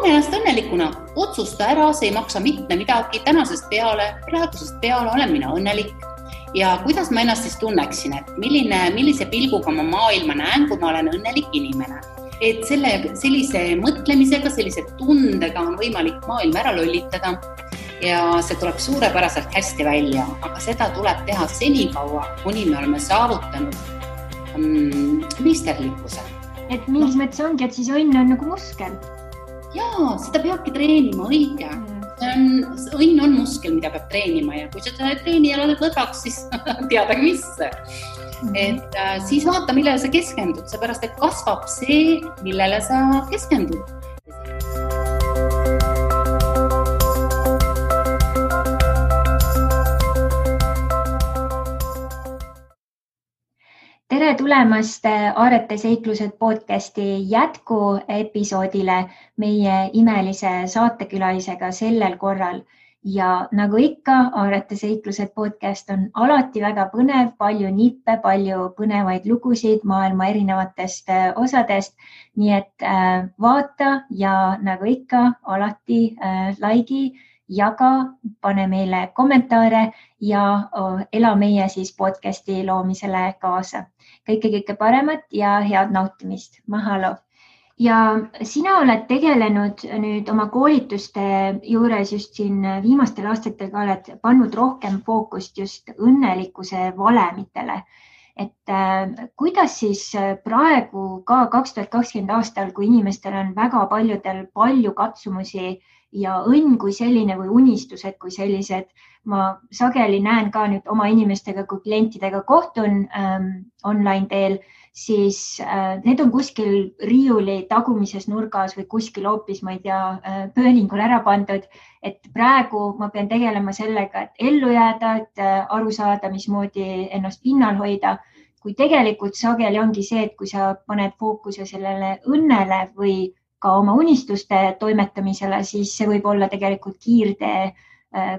tunne ennast õnnelikuna, otsusta ära, see ei maksa mitte midagi, praegusest peale olen mina õnnelik. Ja kuidas ma ennast siis tunneksin, et millise pilguga ma maailma näen, kui ma olen õnnelik inimene. Et sellise mõtlemisega, sellise tundega on võimalik maailma ära lollitada ja see tuleb suurepäraselt hästi välja, aga seda tuleb teha senikaua, kuni me oleme saavutanud meisterlikkuse. Et mingis mõttes ongi, et siis õnn on nagu muskel. Jaa, seda peabki treenima, õige. Õnn on muskel, mida peab treenima ja kui seda treeni ja oled lõdvaks, siis teadagi mis. Et siis vaata, millele sa keskendud, seepärast, et kasvab see, millele sa keskendud. Tere tulemast Aarete seiklused podcasti jätku episoodile meie imelise saatekülalisega sellel korral. Ja nagu ikka, Aarete seiklused podcast on alati väga põnev, palju nippe, palju põnevaid lugusid maailma erinevatest osadest. Nii et vaata ja nagu ikka, alati laigi, jaga, pane meile kommentaare ja ela meie siis podcasti loomisele kaasa. Kõike paremat ja head nautimist. Mahalo! Ja sina oled tegelenud nüüd oma koolituste juures just siin viimastel aastatel ka oled pannud rohkem fookust just õnnelikkuse valemitele. Et kuidas siis praegu ka 2020 aastal, kui inimestel on väga paljudel palju katsumusi ja õnn kui selline või unistused kui sellised, ma sageli näen ka nüüd oma inimestega, kui klientidega kohtun online teel, siis need on kuskil riiuli tagumises nurgas või kuskil hoopis, ma ei tea, pööningul ära pandud. Et praegu ma pean tegelema sellega, et ellu jääda, et aru saada, mismoodi ennast pinnal hoida. Kui tegelikult sageli ongi see, et kui sa paned fookuse sellele õnnele või ka oma unistuste toimetamisele, siis see võib olla tegelikult kiirtee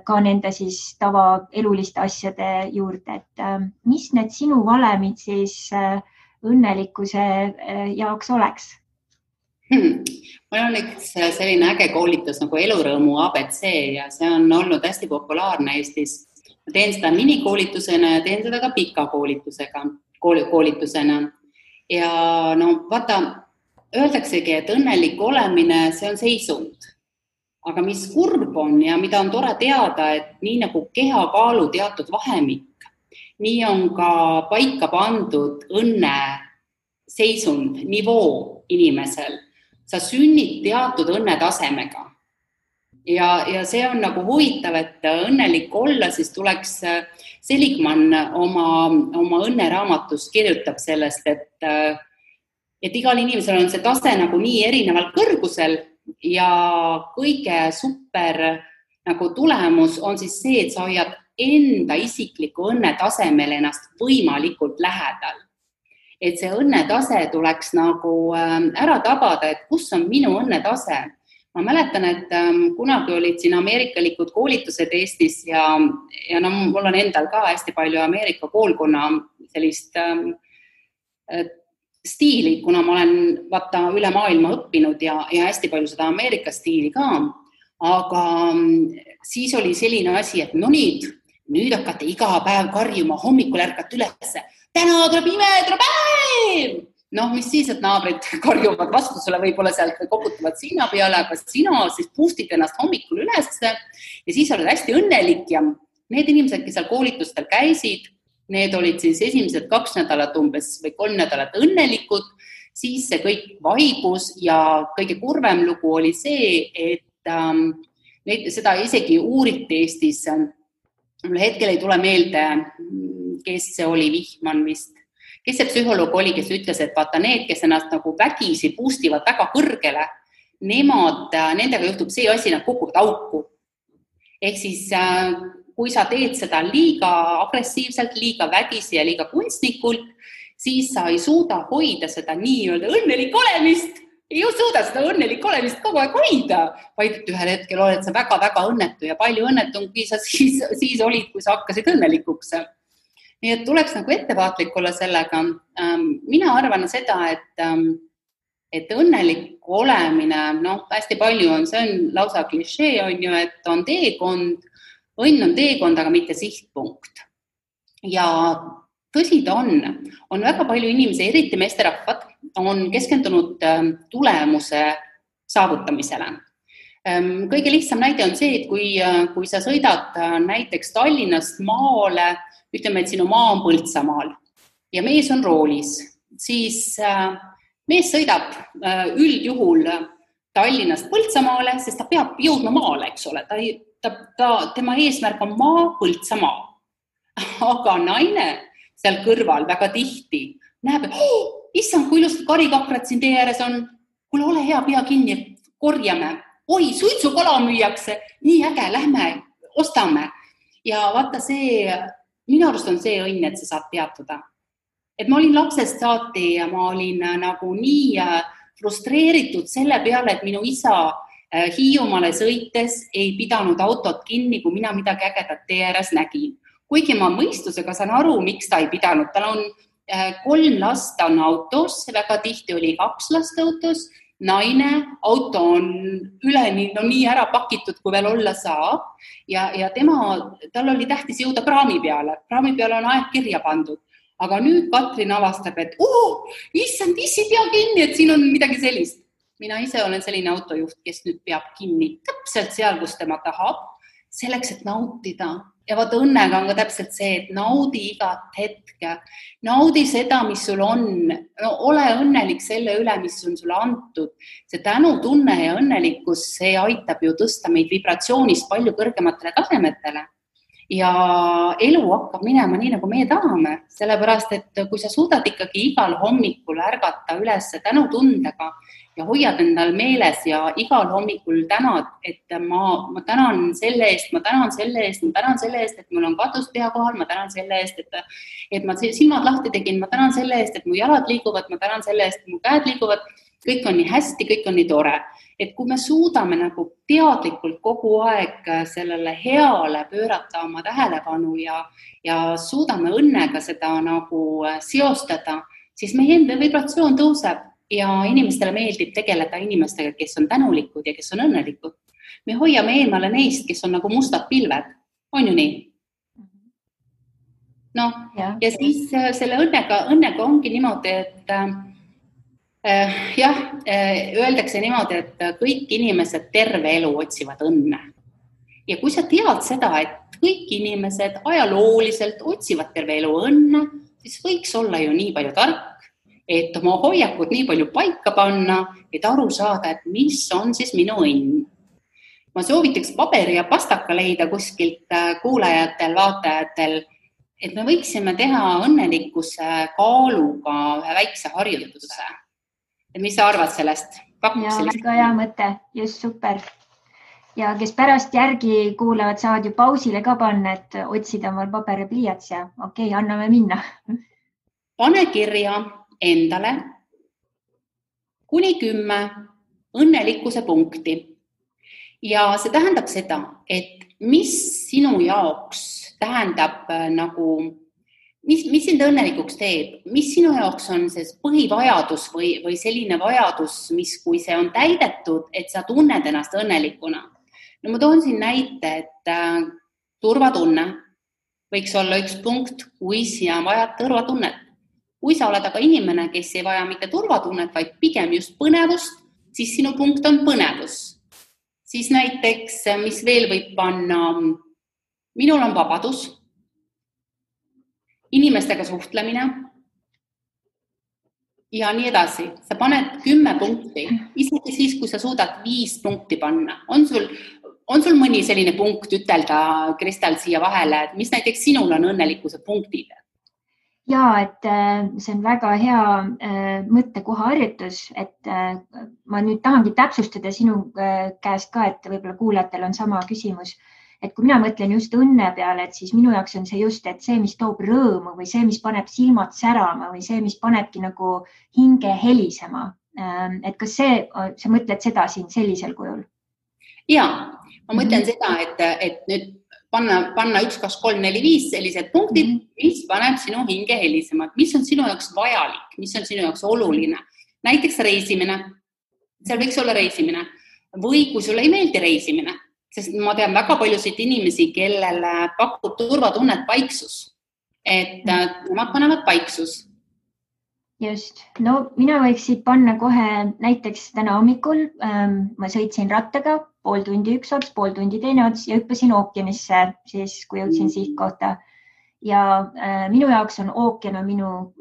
ka nende siis tavaeluliste asjade juurde. Et mis need sinu valemid siis õnnelikkuse jaoks oleks? Mul on üks selline äge koolitus nagu elurõõmu ABC ja see on olnud hästi populaarne Eestis. Ma teen seda minikoolitusena ja teen seda ka pika koolitusena. Ja no vaata, öeldaksegi, et õnnelik olemine, see on seisund. Aga mis kurb on ja mida on tore teada, et nii nagu kehakaalu teatud vahemik, nii on ka paika pandud õnne seisund, nivoo inimesel. Sa sünnid teatud õnnetasemega. Ja see on nagu huvitav, et õnnelik olla, siis tuleks Seligman oma õnneraamatus kirjutab sellest, et igal inimesel on see tase nagu nii erineval kõrgusel ja kõige super nagu tulemus on siis see, et sa hoiad enda isikliku õnnetasemel ennast võimalikult lähedal. Et see õnnetase tuleks nagu ära tabada, et kus on minu õnnetase. Ma mäletan, et kunagi olid siin ameerikalikud koolitused Eestis ja no, mul on endal ka hästi palju Ameerika koolkonna sellist stiili, kuna ma olen üle maailma õppinud ja hästi palju seda Ameerika stiili ka. Aga siis oli selline asi, et no nüüd hakkate iga päev karjuma, hommikul ärkate ülesse. Täna tuleb imeetrapäev! No, mis siis, et naabrid karjuvad vastu sulle võib-olla sealt või koputavad sina peale, aga sina siis boostid ennast hommikul ülesse ja siis oled hästi õnnelik ja need inimesed, kes seal koolitustel käisid, need olid siis esimesed 2 nädalat umbes või 3 nädalat õnnelikud, siis see kõik vaibus ja kõige kurvem lugu oli see, et seda isegi uuriti Eestis. Mul hetkel ei tule meelde, kes see oli, Vihman vist. Kes see psühholoog oli, kes ütles, et vaata need, kes ennast nagu vägisi boostivad väga kõrgele, nendega juhtub see asi, nad kukuvad auku. Ehk siis kui sa teed seda liiga agressiivselt, liiga vägisi ja liiga kunstnikult, siis sa ei suuda hoida seda nii-öelda õnnelik olemist. Ei suuda seda õnnelik olemist kogu aeg hoida, vaid et ühel hetkel oled sa väga-väga õnnetu ja palju õnnetungi sa siis olid, kui sa hakkasid õnnelikuks. Nii et tuleks nagu ettevaatlik olla sellega. Mina arvan seda, et et õnnelik olemine, hästi palju on, see on lausa klišee, on ju, et on teekond, õnn on teekond, aga mitte sihtpunkt. Ja tõsi ta on väga palju inimesi, eriti meesterahvad, on keskendunud tulemuse saavutamisele. Kõige lihtsam näide on see, et kui sa sõidad näiteks Tallinnast maale, ütleme, et sinu maa on Põltsamaal ja mees on roolis, siis mees sõidab üldjuhul Tallinnast Põltsamaale, sest ta peab jõudma maale, eks ole. Tema eesmärk on maa, Põltsamaa. Aga naine seal kõrval väga tihti näeb, et issand, kui ilusad karikakrad siin tee ääres on, kuule, ole hea, pea kinni, korjame. Oi, suitsukala müüakse, nii äge, lähme, ostame. Ja vaata minu arust on see õnn, et sa saad peatuda. Et ma olin lapsest saati ja ma olin nagu nii frustreeritud selle peale, et minu isa Hiiumaale sõites ei pidanud autot kinni, kui mina midagi ägedat tee ääres nägin. Kuigi ma mõistusega saan aru, miks ta ei pidanud. Tal on 3 last on autos, väga tihti oli 2 last autos, naine, auto on üleni nii ära pakitud, kui veel olla saab. Ja tal oli tähtis jõuda praami peale. Praami peale on aeg kirja pandud. Aga nüüd Katrin avastab, et issand, issi pea kinni, et siin on midagi sellist. Mina ise olen selline autojuht, kes nüüd peab kinni täpselt seal, kus tema tahab, selleks, et nautida. Ja vaata, õnnega on ka täpselt see, et naudi igat hetke, naudi seda, mis sul on, ole õnnelik selle üle, mis on sulle antud. See tänutunne ja õnnelikkus, see aitab ju tõsta meid vibratsioonist palju kõrgematele tasemetele. Ja elu hakkab minema nii, nagu meie tahame, sellepärast, et kui sa suudad ikkagi igal hommikul ärgata üles tänutundega ja hoiad endal meeles ja igal hommikul tänad, et ma tänan selle eest, ma tänan selle eest, et mul on katus pea kohal, ma tänan selle eest, et ma silmad lahti tegin, ma tänan selle eest, et mu jalad liiguvad, ma tänan selle eest, et mu käed liiguvad, kõik on nii hästi, kõik on nii tore. Et kui me suudame nagu teadlikult kogu aeg sellele heale pöörata oma tähelepanu ja suudame õnnega seda nagu seostada, siis meie enda vibratsioon tõuseb ja inimestele meeldib tegeleda inimestega, kes on tänulikud ja kes on õnnelikud. Me hoiame eemale neist, kes on nagu mustad pilved. On ju nii? Ja siis selle õnnega ongi niimoodi, et öeldakse niimoodi, et kõik inimesed terve elu otsivad õnne. Ja kui sa tead seda, et kõik inimesed ajalooliselt otsivad terve elu õnne, siis võiks olla ju nii palju tark, et oma hoiakud nii palju paika panna, et aru saada, et mis on siis minu õnn. Ma soovitaks paberi ja pastaka leida kuskilt kuulajatel, vaatajatel, et me võiksime teha õnnelikkuse kaaluga ühe väikse harjutuse. Mis sa arvad sellest? Väga hea mõte, just super. Ja kes pärast järgi kuulavad, saavad ju pausile ka panna, et otsida omal paber ja pliiats ja okei, anname minna. Pane kirja endale kuni 10 õnnelikkuse punkti. Ja see tähendab seda, et mis sinu jaoks tähendab mis sind õnnelikuks teeb, mis sinu jaoks on see põhivajadus või selline vajadus, mis kui see on täidetud, et sa tunned ennast õnnelikuna. No ma toon siin näite, et turvatunne võiks olla üks punkt, kui sina vajad turvatunnet. Kui sa oled aga inimene, kes ei vaja mitte turvatunnet, vaid pigem just põnevust, siis sinu punkt on põnevus. Siis näiteks, mis veel võib panna, minul on vabadus, inimestega suhtlemine ja nii edasi. Sa paned 10 punkti, isegi siis, kui sa suudad 5 punkti panna. On sul mõni selline punkt ütelda, Kristel, siia vahele, et mis näiteks sinul on õnnelikkuse punktid? Ja, et see on väga hea mõttekohaharjutus, et ma nüüd tahangi täpsustada sinu käest ka, et võib-olla kuulajatel on sama küsimus. Et kui mina mõtlen just õnne peale, et siis minu jaoks on see just, et see, mis toob rõõmu või see, mis paneb silmad särama või see, mis panebki nagu hinge helisema. Et kas sa mõtled seda siin sellisel kujul? Ja, ma mõtlen seda, et nüüd panna 1, 2, 3, 4, 5 sellised punktid, mis paneb sinu hinge helisema. Mis on sinu jaoks vajalik, mis on sinu jaoks oluline, näiteks reisimine, seal võiks olla reisimine või kui sulle ei meeldi reisimine, sest ma tean väga paljusid inimesi, kellele pakub turvatunnet paiksus, et nemad panevad paiksus. Just, no mina võiks siit panna kohe näiteks täna hommikul, ma sõitsin rattaga pool tundi üks ots, pool tundi teine ots ja hüppasin ookeanisse, siis kui jõudsin sihtkohta. Ja minu jaoks on ookean minu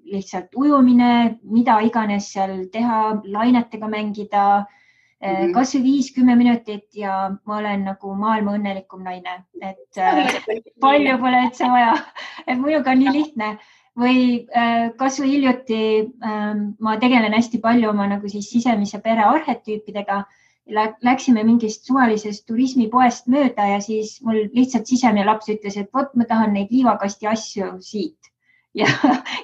lihtsalt ujumine, mida iganes seal teha, lainetega mängida, kas või 5-10 minutit ja ma olen nagu maailma õnnelikum naine, et palju pole üldse vaja, et minuga on nii lihtne. Või kas või hiljuti ma tegelen hästi palju oma nagu siis sisemise pere arhetüüpidega. Läksime mingist suvalisest turismipoest mööda ja siis mul lihtsalt sisemine laps ütles, et vot ma tahan neid liivakasti asju siit. Ja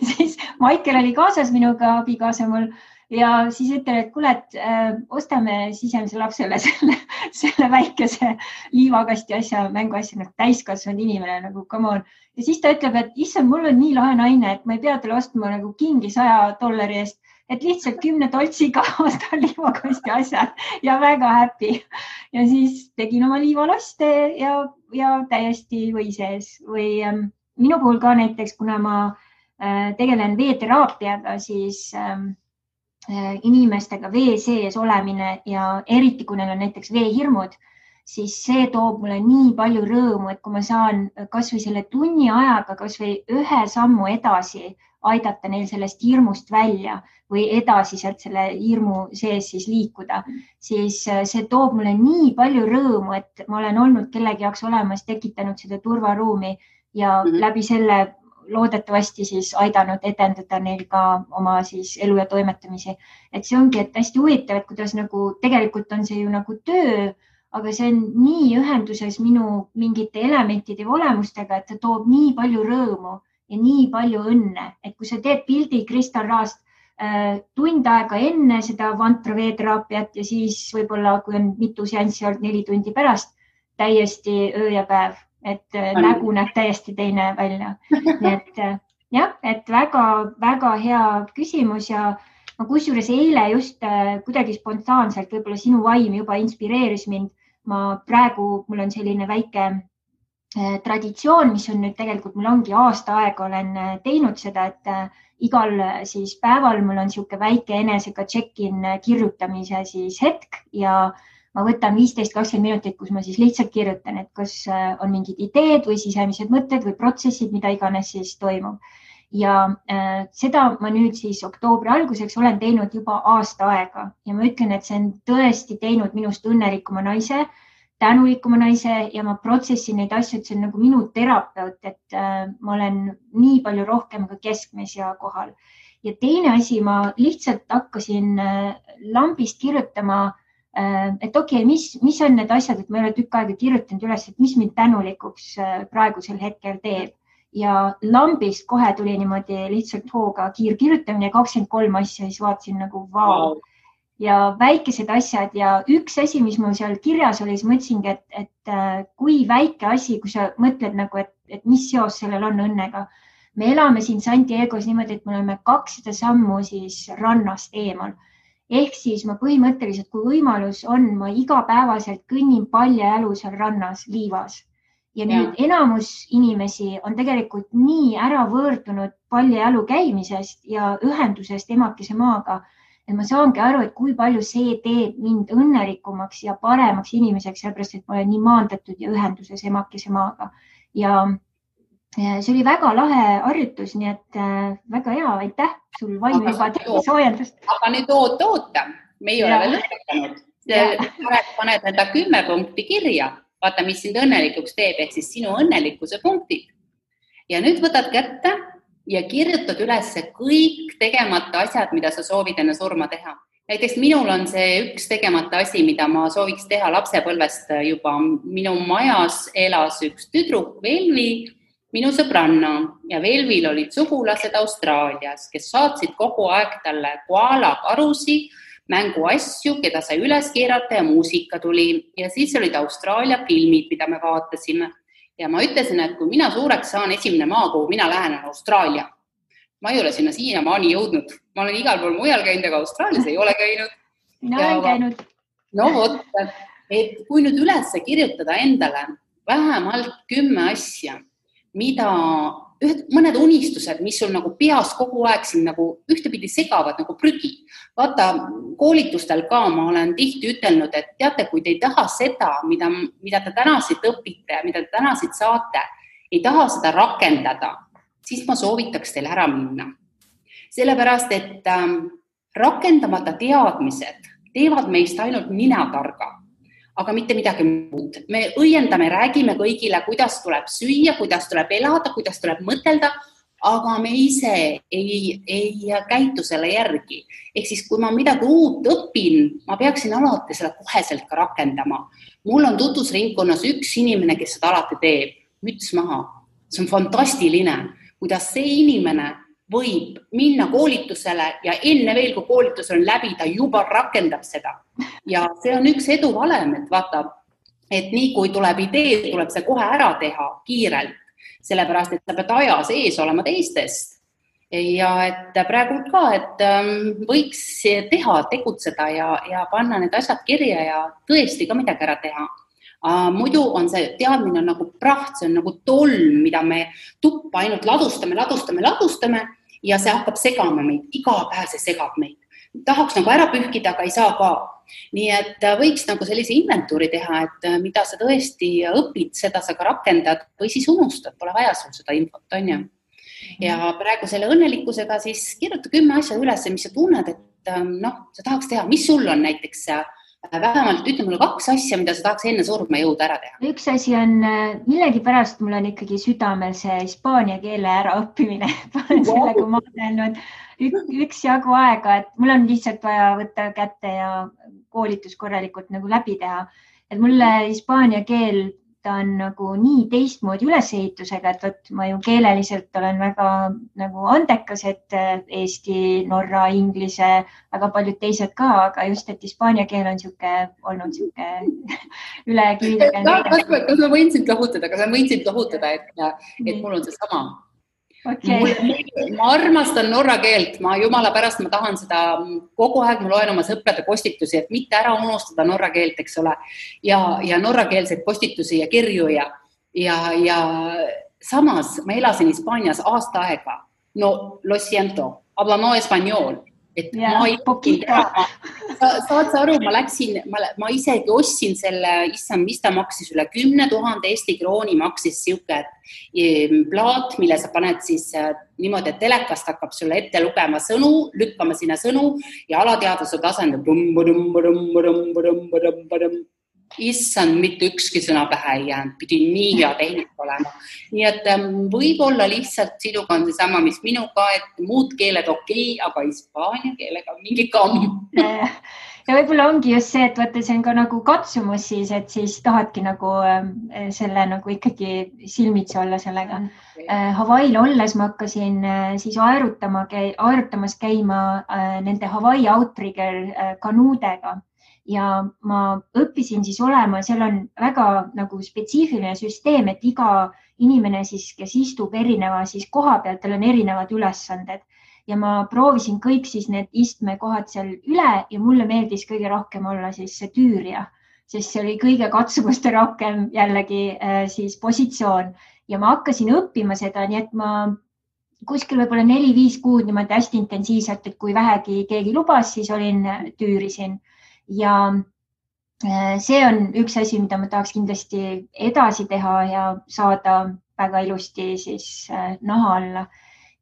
siis Maikel oli kaasas minuga, abikaasa mul, ja siis ütlen, et kuule, et ostame sisemise lapsele selle väikese liivakasti asja, mänguasja, nagu täiskasvanud inimene, nagu come on. Ja siis ta ütleb, et issand, mul on nii lahe naine, et ma ei pea talle ostma nagu kingi $100 eest, et lihtsalt 10 toltsiga ostan liivakasti asjad ja väga happy. Ja siis tegin oma liivalaste ja täiesti või sees. Või minu puhul ka näiteks, kuna ma tegelen veeteraapiaga, siis inimestega vee sees olemine ja eriti, kui neil on näiteks veehirmud, siis see toob mulle nii palju rõõmu, et kui ma saan kas või selle tunni ajaga kas või ühe sammu edasi aidata neil sellest hirmust välja või edasi sealt selle hirmu sees siis liikuda, siis see toob mulle nii palju rõõmu, et ma olen olnud kellegi jaoks olemas, tekitanud seda turvaruumi ja läbi selle loodetavasti siis aidanud edendada neil ka oma siis elu ja toimetamisi. Et see ongi, et hästi huvitav, et kuidas nagu tegelikult on see ju nagu töö, aga see on nii ühenduses minu mingite elementide või olemustega, et ta toob nii palju rõõmu ja nii palju õnne, et kui sa teed pildi kristalraast tund aega enne seda vantra veeteraapiat ja siis võib-olla, kui on mitu seanssi olnud 4 tundi pärast, täiesti öö ja päev, et nägu näeb täiesti teine välja. Nii et jah, et väga hea küsimus ja ma kusjuures eile just kuidagi spontaanselt, võib-olla sinu vaim juba inspireeris mind. Mul on selline väike traditsioon, mis on nüüd tegelikult, mul ongi aasta aega olen teinud seda, et igal siis päeval mul on sihuke väike enesega check-in kirjutamise siis hetk ja ma võtan 15-20 minutit, kus ma siis lihtsalt kirjutan, et kas on mingid ideed või sisemised mõtted või protsessid, mida iganes siis toimub. Ja seda ma nüüd siis oktoobri alguseks olen teinud juba aasta aega ja ma ütlen, et see on tõesti teinud minust õnnelikuma naise, tänulikuma naise ja ma protsessin neid asju, et see on nagu minu terapeut, et ma olen nii palju rohkem ka keskmes ja kohal. Ja teine asi, ma lihtsalt hakkasin lambist kirjutama, et okei, mis on need asjad, et ma ei ole tükk aega kirjutanud üles, et mis mind tänulikuks praegusel hetkel teeb. Ja lambist kohe tuli niimoodi lihtsalt hooga kiirkirjutamine 23 asja, siis vaatasin nagu vau. Ja väikesed asjad ja üks asi, mis mul seal kirjas oli, siis mõtlesingi, et kui väike asi, kui sa mõtled nagu, et mis seos sellel on õnnega. Me elame siin San Diegos niimoodi, et me oleme 200 sammu siis rannast eemal. Ehk siis ma põhimõtteliselt, kui võimalus on, ma igapäevaselt kõnnin paljajalu seal rannas liivas. Ja nüüd enamus inimesi on tegelikult nii ära võõrdunud paljajalu käimisest ja ühendusest emakese maaga, et ma saangi aru, et kui palju see teeb mind õnnelikumaks ja paremaks inimeseks, sellepärast, et ma olen nii maandatud ja ühenduses emakese maaga. Ja see oli väga lahe harjutus, nii et väga hea, aitäh sul vaim juba soojendust. Aga nüüd oota, me ei ole veel lõpetanud. Paned enda 10 punkti kirja. Vaata, mis sind õnnelikuks teeb, ehk siis sinu õnnelikkuse punktid. Ja nüüd võtad kätte ja kirjutad üles kõik tegemata asjad, mida sa soovid enne surma teha. Näiteks minul on see üks tegemata asi, mida ma sooviks teha lapsepõlvest juba. Minu majas elas üks tüdruk, Velvi, minu sõbranna ja Velvil olid sugulased Austraalias, kes saatsid kogu aeg talle koala karusi, mänguasju, keda sai üles keerata ja muusika tuli. Ja siis olid Austraalia filmid, mida me vaatasime. Ja ma ütlesin, et kui mina suureks saan, esimene maa, kuhu mina lähen, on Austraalia. ma ei ole sinna siiamaani jõudnud. Ma olen igal pool mujal käinud, aga Austraalias ei ole käinud. No olen käinud. No vot, et kui nüüd üles kirjutada endale vähemalt 10 asja, mida mõned unistused, mis sul nagu peas kogu aeg siin nagu ühtepidi segavad nagu prügi. Vaata, koolitustel ka ma olen tihti ütelnud, et teate, kui te ei taha seda, mida te täna siit õpite, mida te täna siit saate, ei taha seda rakendada, siis ma soovitaks teil ära minna. Sellepärast, et rakendamata teadmised teevad meist ainult ninatarga, aga mitte midagi muud. Me õiendame, räägime kõigile, kuidas tuleb süüa, kuidas tuleb elada, kuidas tuleb mõtelda, aga me ise ei käitu selle järgi. Ehk siis, kui ma midagi uut õpin, ma peaksin alati seda koheselt ka rakendama. Mul on tutvusringkonnas üks inimene, kes seda alati teeb, müts maha. See on fantastiline, kuidas see inimene võib minna koolitusele ja enne veel, kui koolitus on läbi, ta juba rakendab seda. Ja see on üks eduvalem, et vaata, et nii kui tuleb idee, tuleb see kohe ära teha kiirelt, sellepärast, et sa pead aja sees olema teistest. Ja et praegu ka, et võiks teha, tegutseda ja panna need asjad kirja ja tõesti ka midagi ära teha. Muidu on see teadmine on nagu praht, see on nagu tolm, mida me tuppa ainult ladustame ja see hakkab segama meid, iga päev see segab meid. Tahaks nagu ära pühkida, aga ei saa ka. Nii et võiks nagu sellise inventuuri teha, et mida sa tõesti õpid, seda sa ka rakendad või siis unustad, pole vaja sul seda infot, on ju. Ja praegu selle õnnelikkusega siis kirjuta 10 asja üles, mis sa tunned, et sa tahaks teha. Mis sul on näiteks vähemalt, ütle mulle 2 asja, mida sa tahaks enne surma jõuda ära teha. Üks asi on, millegipärast mul on ikkagi südamel see hispaania keele ära õppimine. Sellega ma olen üks jagu aega, et mul on lihtsalt vaja võtta kätte ja koolitus korralikult nagu läbi teha. Et mulle hispaania keel, ta on nagu nii teistmoodi ülesehitusega, et võt, ma ju keeleliselt olen väga nagu andekas, et eesti, norra, inglise, väga paljud teised ka, aga just, et hispaania keel on olnud üle kivide. Kas ma võin sind lohutada, et mul on see sama. Okay. Ma armastan norra keelt, jumala pärast ma tahan seda kogu aeg, ma loen oma sõprade postitusi, et mitte ära unustada norra keelt, eks ole, ja norrakeelseid postitusi ja kirju ja samas ma elasin Hispaanias aasta aega, no lo siento, habla no español, et ma ei saad sa aru, ma isegi ostsin selle, mis ta maksis üle 10 000 Eesti krooni maksis siuke plaat, mille sa paned siis niimoodi, et telekast hakkab sulle ette lugema sõnu, lükkama sinna sõnu ja alateadvuse tasandab issand, mitte ükski sõna pähe ei jäänud, pidi nii hea tehnik olema. Nii et võib-olla lihtsalt sinuga on see sama, mis minuga, et muud keeled okei, aga hispaania keelega mingi kamm. Ja võib-olla ongi just see, et võtta, see on ka nagu katsumus siis, et siis tahadki nagu selle nagu ikkagi silmitsi olla sellega. Hawaii'l olles ma hakkasin siis aerutamas käima nende Hawaii Outrigger kanuudega. Ja ma õppisin siis olema, seal on väga nagu spetsiifiline süsteem, et iga inimene siis, kes istub erineva siis koha peal, tal on erinevad ülesanded ja ma proovisin kõik siis need istmekohad seal üle ja mulle meeldis kõige rohkem olla siis see tüürja, sest see oli kõige katsumuste rohkem jällegi siis positsioon ja ma hakkasin õppima seda, nii et ma kuskil võib-olla 4-5 kuud niimoodi hästi intensiivselt, et kui vähegi keegi lubas, siis tüürisin. Ja see on üks asi, mida ma tahaks kindlasti edasi teha ja saada väga ilusti siis naha alla.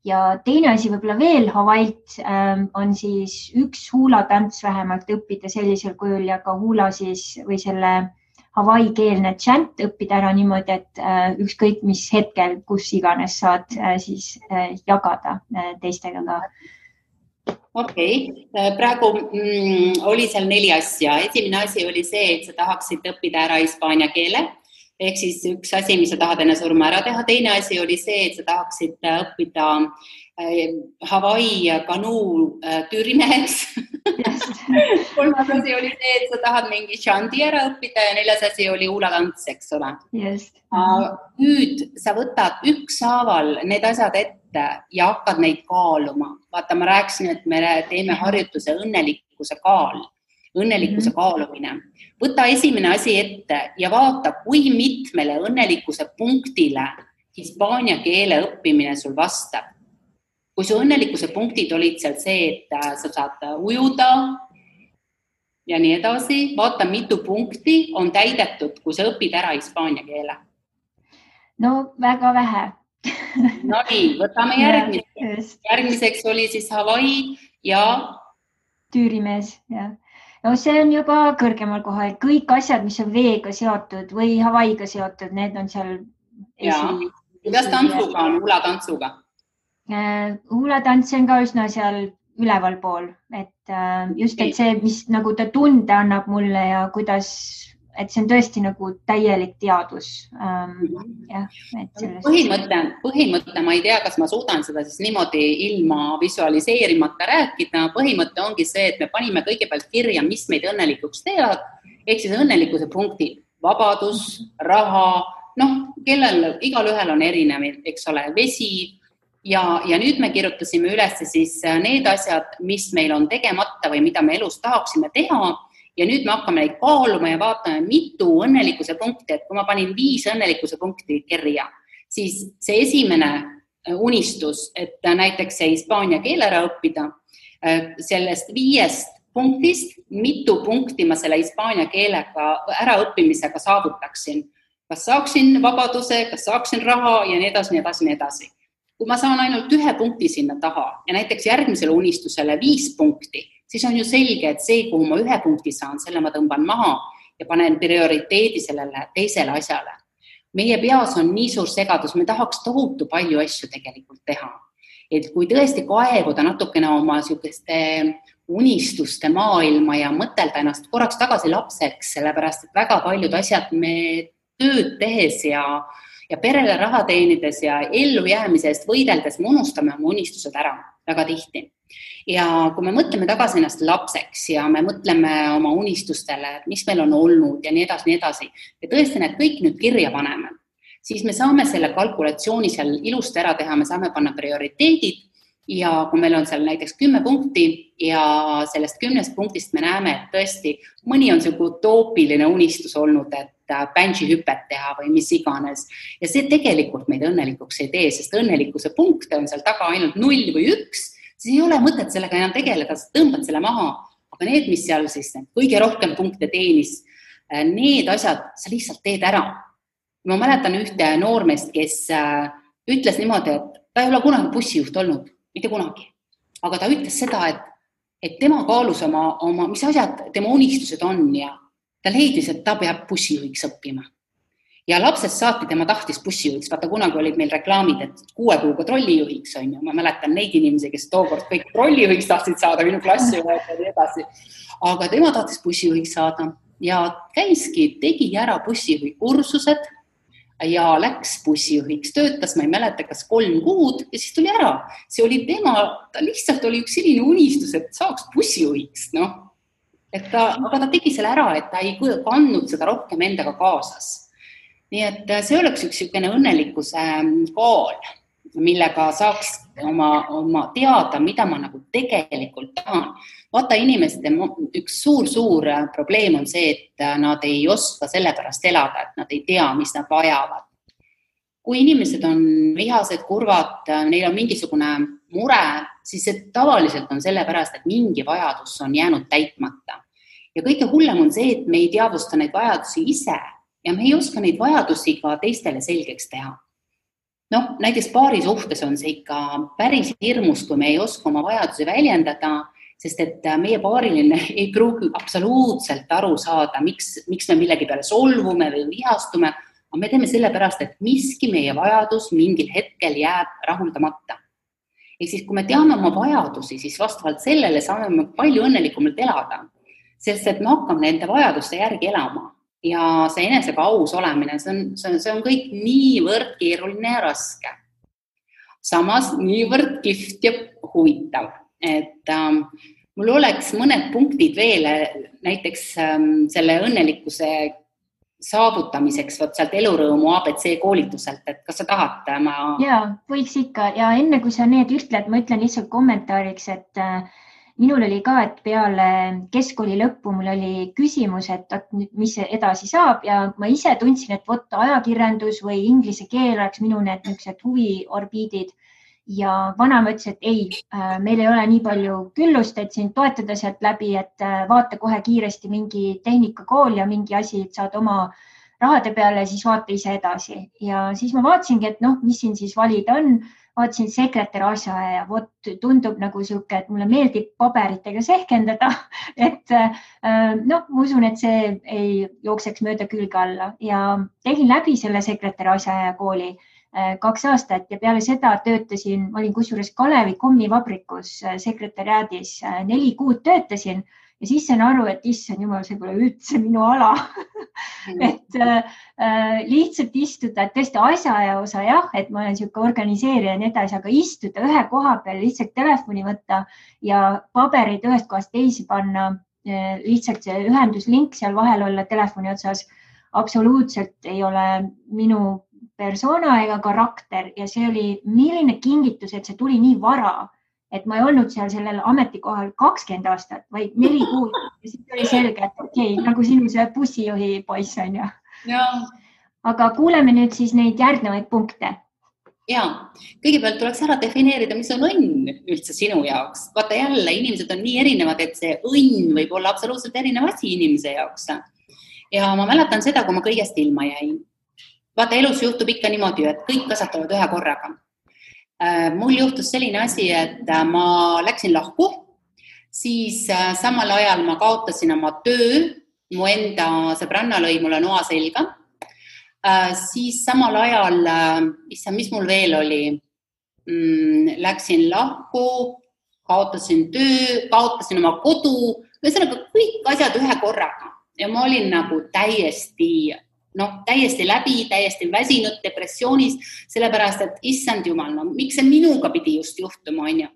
Ja teine asi võib-olla veel Hawaii'lt on siis üks huulatants vähemalt õppida sellisel kujul ja ka huula siis või selle Hawaii keelne chant õppida ära niimoodi, et ükskõik mis hetkel, kus iganes saad siis jagada teistega ka. Okei. Praegu oli seal 4 asja. Esimene asi oli see, et sa tahaksid õppida ära hispaania keele. Ehk siis üks asi, mis sa tahad enne surma ära teha. Teine asi oli see, et sa tahaksid õppida Hawaii kanuu tüürimeheks. Kolmas asi oli see, et sa tahad mingi shanti ära õppida ja 4. asi oli huulatants, eks ole. Just. Nüüd sa võtad ükshaaval need asjad ette ette ja hakkad neid kaaluma. Vaata, ma rääkisin, et me teeme harjutuse õnnelikkuse kaalumine. Võta esimene asi ette ja vaata, kui mitmele õnnelikkuse punktile hispaania keele õppimine sul vastab. Kui su õnnelikkuse punktid olid seal see, et sa saad ujuda ja nii edasi, vaata, mitu punkti on täidetud, kui sa õpid ära hispaania keele. No väga vähe. No nii, võtame järgmiseks oli siis Hawaii ja Tüürimees, jah. No see on juba kõrgemal kohal. Kõik asjad, mis on veega seotud või Hawaiiga seotud, need on seal. Kuidas tantsuga on, hulatantsuga? Hulatants on ka üsna seal üleval pool, et just et see, mis nagu ta tunde annab mulle ja kuidas, et see on tõesti nagu täielik teadus. Põhimõte, ma ei tea, kas ma suudan seda siis niimoodi ilma visualiseerimata rääkida. Põhimõte ongi see, et me panime kõigepealt kirja, mis meid õnnelikuks teevad, ehk siis õnnelikkuse punktid, vabadus, raha, igal ühel on erinev, eks ole, vesi ja nüüd me kirjutasime üles siis need asjad, mis meil on tegemata või mida me elus tahaksime teha ja nüüd me hakkame neid kaaluma ja vaatame, mitu õnnelikkuse punkti, et kui ma panin 5 õnnelikkuse punkti kirja, siis see esimene unistus, et näiteks see hispaania keele ära õppida, sellest 5 punktist, mitu punkti ma selle hispaania keelega äraõppimisega saavutaksin. Kas saaksin vabaduse, kas saaksin raha ja nii edasi, nii edasi, nii edasi. Kui ma saan ainult 1 punkti sinna taha ja näiteks järgmisele unistusele 5 punkti, siis on ju selge, et see, kuhu ma 1 punkti saan, selle ma tõmban maha ja panen prioriteedi sellele teisele asjale. Meie peas on nii suur segadus, me tahaks tohutu palju asju tegelikult teha. Et kui tõesti kaevuda natukene oma sihukeste unistuste maailma ja mõtelda ennast korraks tagasi lapseks, sellepärast et väga paljud asjad me tööd tehes ja perele raha teenides ja ellu jäämise eest võideldes me unustame oma unistused ära väga tihti. Ja kui me mõtleme tagasi ennast lapseks ja me mõtleme oma unistustele, et mis meil on olnud ja nii edasi, ja tõesti need kõik nüüd kirja paneme, siis me saame selle kalkulatsiooni seal ilusti ära teha, me saame panna prioriteedid ja kui meil on seal näiteks 10 punkti ja sellest 10 punktist me näeme, et tõesti mõni on selline utoopiline unistus olnud, et bungee hüpet teha või mis iganes. Ja see tegelikult meid õnnelikuks ei tee, sest õnnelikkuse punkte on seal taga ainult 0 või 1, siis ei ole mõtet sellega enam tegeleda, sa tõmbad selle maha. Aga need, mis seal siis kõige rohkem punkte teenis, need asjad sa lihtsalt teed ära. Ma mäletan ühte noormeest, kes ütles niimoodi, et ta ei ole kunagi bussijuht olnud, mitte kunagi. Aga ta ütles seda, et tema kaalus oma, mis asjad tema unistused on ja ta leidis, et ta peab bussijuhiks õppima. Ja lapsest saati tema tahtis bussijuhiks. Vaata, kunagi olid meil reklaamid, et 6 kuuga trollijuhiks on ju. Ma mäletan neid inimesi, kes tookord kõik trollijuhiks tahtsid saada, minu klassi ja nii edasi. Aga tema tahtis bussijuhiks saada ja käiski, tegi ära bussijuhi kursused ja läks bussijuhiks. Töötas, ma ei mäleta, kas 3 kuud ja siis tuli ära. See oli ta lihtsalt oli üks selline unistus, et saaks bussijuhiks, aga ta tegi selle ära, et ta ei kandnud seda rohkem endaga kaasas. Nii et see oleks üks õnnelikkuse kaal, millega saaks oma teada, mida ma nagu tegelikult tahan. Vaata, inimeste üks suur probleem on see, et nad ei oska selle pärast elada, et nad ei tea, mis nad vajavad. Kui inimesed on vihased, kurvad, neil on mingisugune mure, siis see tavaliselt on selle pärast, et mingi vajadus on jäänud täitmata. Ja kõige hullem on see, et me ei teadvusta neid vajadusi ise ja me ei oska neid vajadusi ka teistele selgeks teha. Näiteks paari suhtes on see ikka päris hirmus, kui me ei oska oma vajadusi väljendada, sest et meie paariline ei pruugi absoluutselt aru saada, miks me millegi peale solvume või vihastume, aga me teeme selle pärast, et miski meie vajadus mingil hetkel jääb rahuldamata. Ehk siis, kui me teame oma vajadusi, siis vastavalt sellele saame me palju õnnelikumalt elada. Sest et me hakkame nende vajaduste järgi elama ja see enesega aus olemine, see on kõik niivõrd keeruline ja raske. Samas niivõrd kihvt ja huvitav, et mul oleks mõned punktid veel näiteks selle õnnelikkuse saavutamiseks võt sealt elurõõmu ABC koolituselt, et kas sa tahad? Jaa, võiks ikka ja enne kui sa need ütled, ma ütlen lihtsalt kommentaariks, et minul oli ka, et peale keskkooli lõppu mul oli küsimus, et mis edasi saab ja ma ise tundsin, et ajakirjandus või inglise keel oleks minu need niisugused huviorbiidid ja vanaema ütles, et ei, meil ei ole nii palju küllust, et sind toetada sealt läbi, et vaata kohe kiiresti mingi tehnikakool ja mingi asi, et saad oma rahade peale, siis vaata ise edasi. Ja siis ma vaatasingi, et mis siin siis valida on. Vaatasin sekretär asja ja tundub nagu siuke, et mulle meeldib paberitega sehkendada, et ma usun, et see ei jookseks mööda külge alla ja tegin läbi selle sekretär asja ja kooli 2 aastat ja peale seda töötasin, ma olin kusjuures Kalevi kommivabrikus sekretäriaadis 4 kuud töötasin ja siis sain aru, et issand jumal, see pole üldse minu ala. Et lihtsalt istuda, et tõesti asjaaja osa jah, et ma olen siuke organiseerija ja nii edasi, aga istuda ühe koha peal, lihtsalt telefoni võtta ja paberid ühest kohast teisi panna, lihtsalt see ühenduslink seal vahel olla telefoni otsas, absoluutselt ei ole minu persona ega karakter ja see oli milline kingitus, et see tuli nii vara. Et ma ei olnud seal sellel ametikohal 20 aastat, vaid 4 kuud. Ja siis oli selge, et okei, nagu sinu see bussijuhi poiss on ju. Aga kuuleme nüüd siis neid järgnevaid punkte. Ja, kõigepealt tuleks ära defineerida, mis on õnn üldse sinu jaoks. Vaata jälle, inimesed on nii erinevad, et see õnn võib olla absoluutselt erinev asi inimese jaoks. Ja ma mäletan seda, kui ma kõigest ilma jäin. Vaata, elus juhtub ikka niimoodi, et kõik kasvatavad ühe korraga. Mul juhtus selline asi, et ma läksin lahku, siis samal ajal ma kaotasin oma töö, mu enda sõbranna lõi mulle noa selga, siis samal ajal, mis mul veel oli, läksin lahku, kaotasin töö, kaotasin oma kodu, ühesõnaga kõik asjad ühe korraga ja ma olin nagu täiesti läbi, täiesti väsinud depressioonis, sellepärast, et issand jumal, miks see minuga pidi just juhtuma, on ju.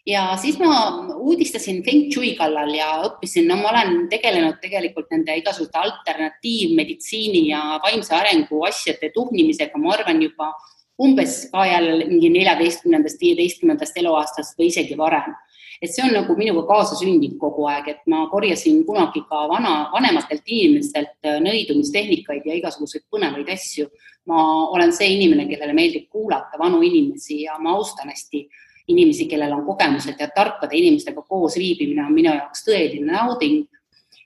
Ja siis ma uudistasin Feng Shui kallal ja õppisin, ma olen tegelenud tegelikult nende igasugute alternatiivmeditsiini ja vaimse arengu asjade tuhnimisega, ma arvan juba umbes ka jälle mingi 14-15 eluaastast või isegi varem. Et see on nagu minuga kaasa sündinud kogu aeg, et ma korjasin kunagi ka vanematelt inimestelt nõidumistehnikaid ja igasuguseid põnevaid asju. Ma olen see inimene, kellele meeldib kuulata vanu inimesi ja ma austan hästi inimesi, kellel on kogemused ja tarkade inimestega koos viibimine on minu jaoks tõeline nauding.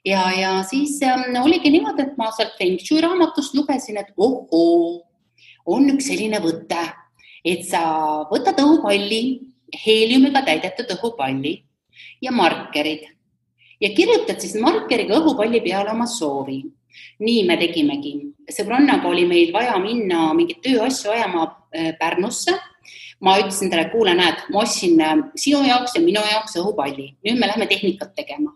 Ja siis oligi niimoodi, et ma sealt Feng Shui raamatust lugesin, et on üks selline võte, et sa võtad õhupalli, heeliumiga täidetud õhupalli ja markerid ja kirjutad siis markeriga õhupalli peale oma soovi. Nii me tegimegi. Sõbrannaga oli meil vaja minna mingit tööasju ajama Pärnusse. Ma ütlesin talle, kuule, näed, ma ostsin sinu jaoks ja minu jaoks õhupalli. Nüüd me lähme tehnikat tegema.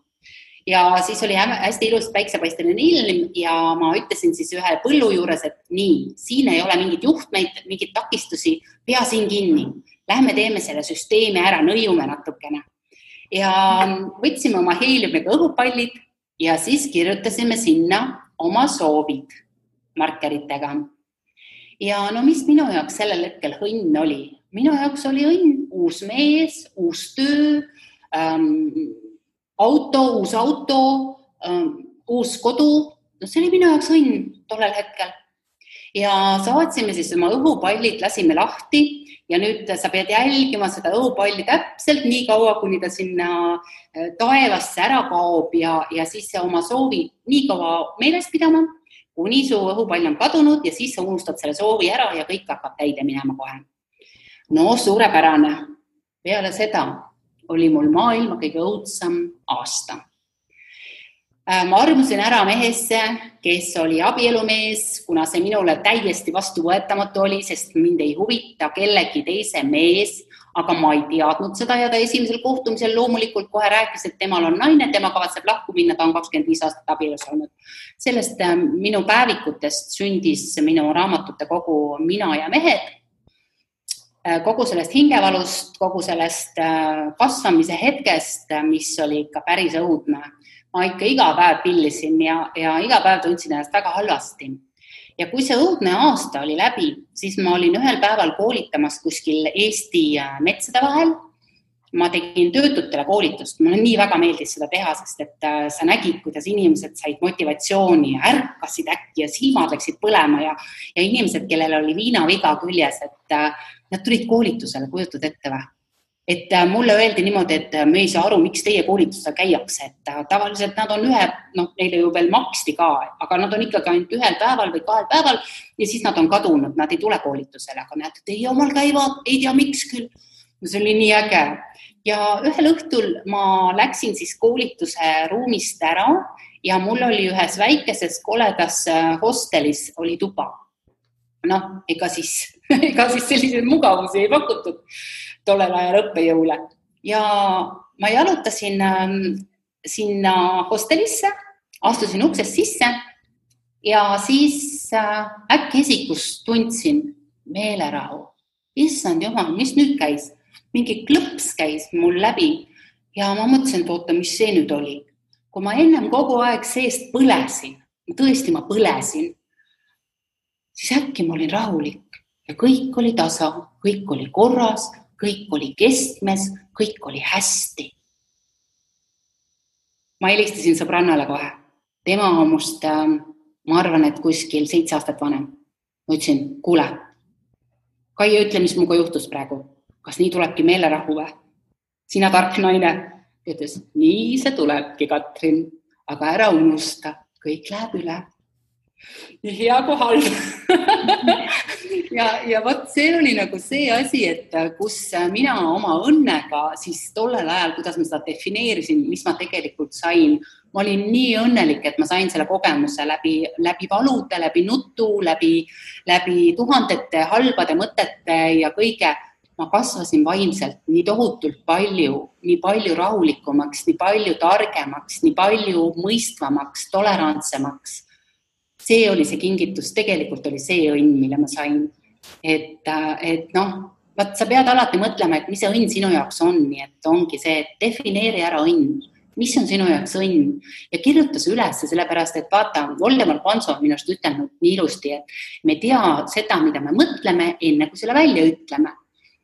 Ja siis oli hästi ilus päiksepaisteline ilm ja ma ütlesin siis ühe põllu juures, et nii, siin ei ole mingit juhtmeid, mingit takistusi, pea siin kinni. Lähme teeme selle süsteemi ära, nõiume natukene. Ja võtsime oma heeliumiga õhupallid ja siis kirjutasime sinna oma soovid markeritega. Ja mis minu jaoks sellel hetkel õnn oli? Minu jaoks oli õnn uus mees, uus töö, uus auto, uus kodu. See oli minu jaoks õnn tollel hetkel. Ja saatsime siis oma õhupallid, lasime lahti ja nüüd sa pead jälgima seda õhupalli täpselt nii kaua, kuni ta sinna taevasse ära kaob ja siis oma soovi nii kaua meeles pidama, kuni su õhupall on kadunud ja siis sa unustad selle soovi ära ja kõik hakkab täide minema kohe. Suurepärane. Peale seda oli mul maailma kõige õudsam aasta. Ma armusin ära mehesse, kes oli abielumees, kuna see minule täiesti vastuvõetamatu oli, sest mind ei huvita kellegi teise mees, aga ma ei teadnud seda ja ta esimesel kohtumisel loomulikult kohe rääkis, et temal on naine, tema kavatseb lahku minna, ta on 25 aastat abielus olnud. Sellest minu päevikutest sündis minu raamatute kogu Mina ja mehed. Kogu sellest hingevalust, kogu sellest kasvamise hetkest, mis oli ikka päris õudne. ma ikka iga päev pillisin ja iga päev tundsin ennast väga halvasti. Ja kui see õudne aasta oli läbi, siis ma olin ühel päeval koolitamas kuskil Eesti metsade vahel. Ma tegin töötutele koolitust, mulle nii väga meeldis seda teha, sest et sa nägid, kuidas inimesed said motivatsiooni ja ärkasid äkki ja silmad läksid põlema ja inimesed, kellel oli viinaviga küljes, et nad tulid koolitusele, kujutad ette või? Et mulle öeldi niimoodi, et me ei saa aru, miks teie koolitusel käiakse, et tavaliselt nad on neile ju veel maksti ka, aga nad on ikkagi ainult ühel päeval või 2 päeval ja siis nad on kadunud, nad ei tule koolitusele, aga näed, teie omal käivad, ei tea miks küll. See oli nii äge. Ja ühel õhtul ma läksin siis koolituse ruumist ära ja mul oli ühes väikeses koledas hostelis oli tuba. Ega siis selliseid mugavusi ei pakutud tollel ajal õppejõule. Ja ma jalutasin sinna hostelisse, astusin uksest sisse ja siis äkki esikus tundsin meelerahu. Issand jumal, mis nüüd käis? Mingi klõps käis mul läbi ja ma mõtlesin, et oota, mis see nüüd oli. Kui ma ennem kogu aeg seest põlesin, tõesti ma põlesin, siis äkki ma olin rahulik ja kõik oli tasa, kõik oli korras, kõik oli kestmes, kõik oli hästi. Ma helistasin sõbrannale kohe. Tema on must, ma arvan, et kuskil 7 aastat vanem. Ma ütlesin, kuule, Kaie, ütle, mis muga juhtus praegu. Kas nii tulebki meelerahu või? Sina tark naine. Ütles, nii see tulebki, Katrin, aga ära unusta, kõik läheb üle. Nii hea kui halb. ja võt, see oli nagu see asi, et kus mina oma õnnega siis tollel ajal, kuidas ma seda defineerisin, mis ma tegelikult sain, ma olin nii õnnelik, et ma sain selle kogemuse läbi valude, läbi nutu, läbi tuhandete halbade mõtete ja kõige. Ma kasvasin vaimselt nii tohutult palju, nii palju rahulikumaks, nii palju targemaks, nii palju mõistvamaks, tolerantsemaks. See oli see kingitus, tegelikult oli see õnn, mille ma sain. Et sa pead alati mõtlema, et mis see õnn sinu jaoks on, nii et ongi see, et defineeri ära õnn. Mis on sinu jaoks õnn? Ja kirjuta see üles, sellepärast, et vaata, Voldemar Panso on minust ütelnud nii ilusti, et me tea seda, mida me mõtleme, enne kui selle välja ütleme.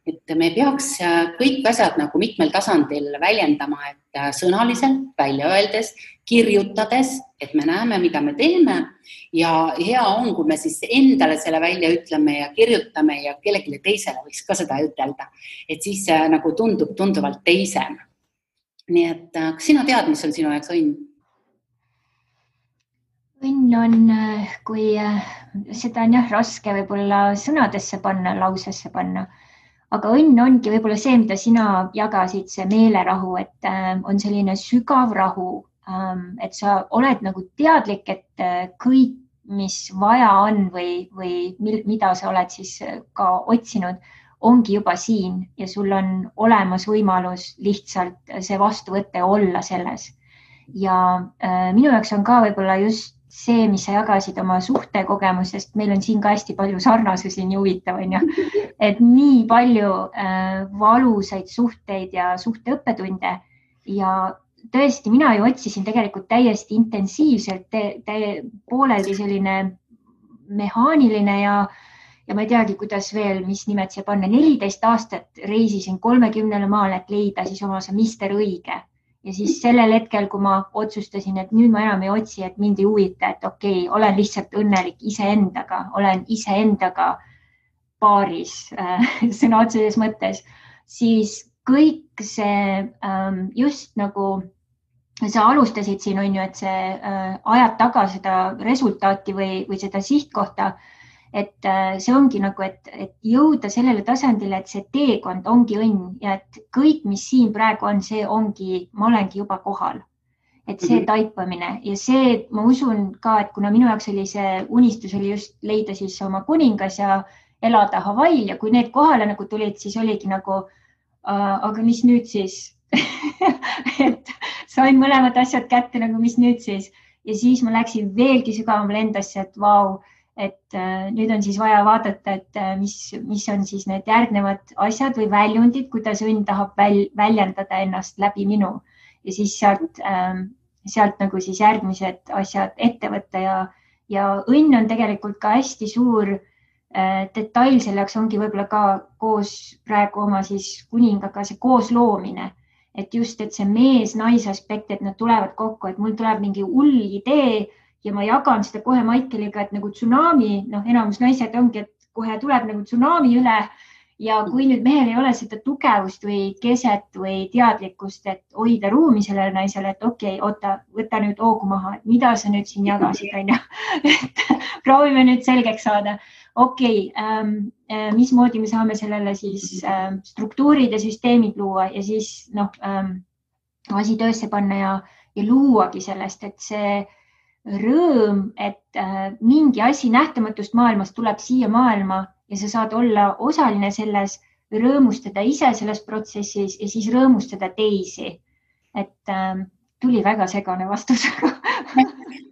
Et me peaks kõik asjad nagu mitmel tasandil väljendama, et sõnaliselt, välja öeldes, kirjutades, et me näeme, mida me teeme ja hea on, kui me siis endale selle välja ütleme ja kirjutame ja kellelegi teisele võiks ka seda ütelda, et siis nagu tundub tunduvalt teisem. Nii et kas sina tead, mis on sinu jaoks õnn? Õnn on, kui seda on raske võib-olla sõnadesse panna, lausesse panna. Aga õnn ongi võib-olla see, mida sina jagasid, see meelerahu, et on selline sügav rahu, et sa oled nagu teadlik, et kõik, mis vaja on või mida sa oled siis ka otsinud, ongi juba siin ja sul on olemas võimalus lihtsalt see vastuvõtte olla selles. Ja minu jaoks on ka võib-olla just see, mis sa jagasid oma suhtekogemusest, meil on siin ka hästi palju sarnasusi, nii huvitav on ju, et nii palju valusaid suhteid ja suhteõppetunde ja tõesti, mina ju otsisin tegelikult täiesti intensiivselt, pooleldi selline mehaaniline ja ma ei teagi, kuidas veel, mis nimed siia panna, 14 aastat reisisin 30 maal, et leida siis oma see mister õige. Ja siis sellel hetkel, kui ma otsustasin, et nüüd ma enam ei otsi, et mind ei huvita, et okei, olen lihtsalt õnnelik iseendaga, olen iseendaga paaris sõna otseses mõttes, siis kõik see just nagu sa alustasid siin, on ju, et see ajad taga seda resultaati või seda sihtkohta, et see ongi nagu, et jõuda sellele tasandile, et see teekond ongi õnn ja et kõik, mis siin praegu on, see ongi, ma olengi juba kohal. Et see taipamine ja see, ma usun ka, et kuna minu jaoks oli see unistus oli just leida siis oma kuningas ja elada Hawaii'l ja kui need kohale nagu tulid, siis oligi nagu, aga mis nüüd siis? Et sain mõlemad asjad kätte nagu, mis nüüd siis? Ja siis ma läksin veelgi sügavamale endasse, et vau, et nüüd on siis vaja vaadata, et mis on siis need järgnevad asjad või väljundid, kuidas õnn tahab väljendada ennast läbi minu. Ja siis sealt sealt nagu siis järgmised asjad ette võtta ja õnn on tegelikult ka hästi suur detail, selleks ongi võib-olla ka koos praegu oma siis kuningaga see koosloomine, et just, et see mees-naise aspekt, et nad tulevad kokku, et mul tuleb mingi hull idee ja ma jagan seda kohe Maikeliga, et nagu tsunami, enamus naised ongi, et kohe tuleb nagu tsunami üle. Ja kui nüüd mehel ei ole seda tugevust või keset või teadlikkust, et hoida ruumi sellele naisele, et okei, oota, võta nüüd hoogu maha, et mida sa nüüd siin jagasid, on ju. Et proovime nüüd selgeks saada. Okei, mismoodi me saame sellele siis struktuurid ja süsteemid luua ja siis asi töösse panna ja luuagi sellest, et see rõõm, et mingi asi nähtamatust maailmast tuleb siia maailma ja sa saad olla osaline selles, rõõmustada ise selles protsessis ja siis rõõmustada teisi. Et tuli väga segane vastus.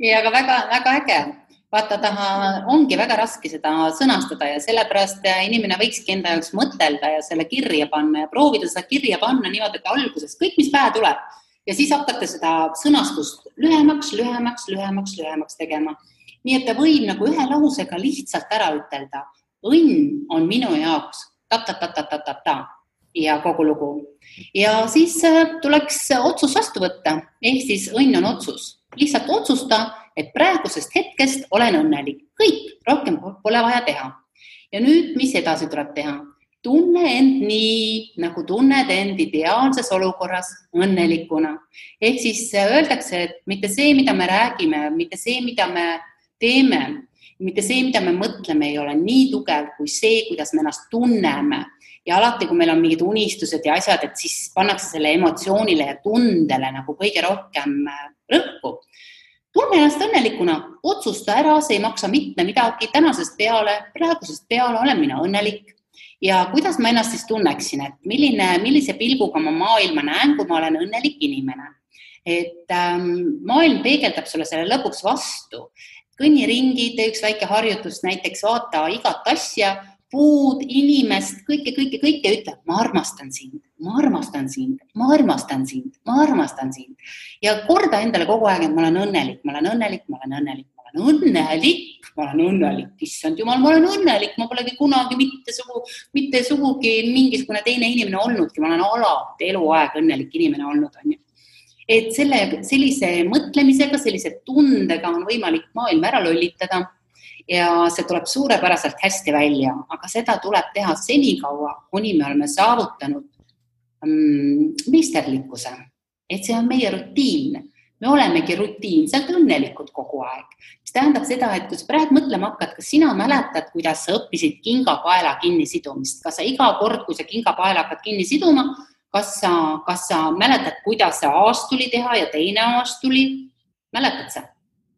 Ja, aga väga äge. Vaata, ongi väga raske seda sõnastada ja sellepärast inimene võikski enda jaoks mõtelda ja selle kirja panna ja proovida seda kirja panna niimoodi, et alguses kõik, mis pähe tuleb ja siis hakata seda sõnastust lühemaks tegema. Nii, et ta võib nagu ühe lausega lihtsalt ära ütelda. Õnn on minu jaoks ta ja kogu lugu. Ja siis tuleks otsus vastu võtta. Ehk siis õnn on otsus. Lihtsalt otsusta, et praegusest hetkest olen õnnelik. Kõik, rohkem pole vaja teha. Ja nüüd, mis edasi tuleb teha? Tunne end nii, nagu tunned end ideaalses olukorras õnnelikuna. Ehk siis öeldakse, et mitte see, mida me räägime, mitte see, mida me teeme, mitte see, mida me mõtleme, ei ole nii tugev kui see, kuidas me ennast tunneme. Ja alati, kui meil on mingid unistused ja asjad, et siis pannakse selle emotsioonile ja tundele nagu kõige rohkem rõhku. Tunne ennast õnnelikuna, otsusta ära, see ei maksa mitte midagi, tänasest peale, praegusest peale olen mina õnnelik. Ja kuidas ma ennast siis tunneksin, et millise pilguga ma maailma näen, kui ma olen õnnelik inimene. Et maailm peegeldab sulle selle lõpuks vastu. Kõnni ringi, tee üks väike harjutus, näiteks vaata igat asja, puud, inimest, kõike ütle, ma armastan sind. Ja korda endale kogu aeg, et ma olen õnnelik. Issand jumal, ma olen õnnelik, ma polegi kunagi mitte sugugi mingisugune teine inimene olnudki, ma olen alati eluaeg õnnelik inimene olnud, on ju. Et sellise mõtlemisega, sellise tundega on võimalik maailm ära lollitada ja see tuleb suurepäraselt hästi välja, aga seda tuleb teha senikaua, kuni me oleme saavutanud meisterlikkuse. Et see on meie rutiin. Me olemegi rutiinselt õnnelikud kogu aeg. Mis tähendab seda, et kui sa praegu mõtlema hakkad, kas sina mäletad, kuidas sa õppisid kingapaela kinni sidumist? Kas sa iga kord, kui sa kingapaela hakkad kinni siduma, kas sa mäletad, kuidas see aastuli teha ja teine aastuli? Mäletad sa?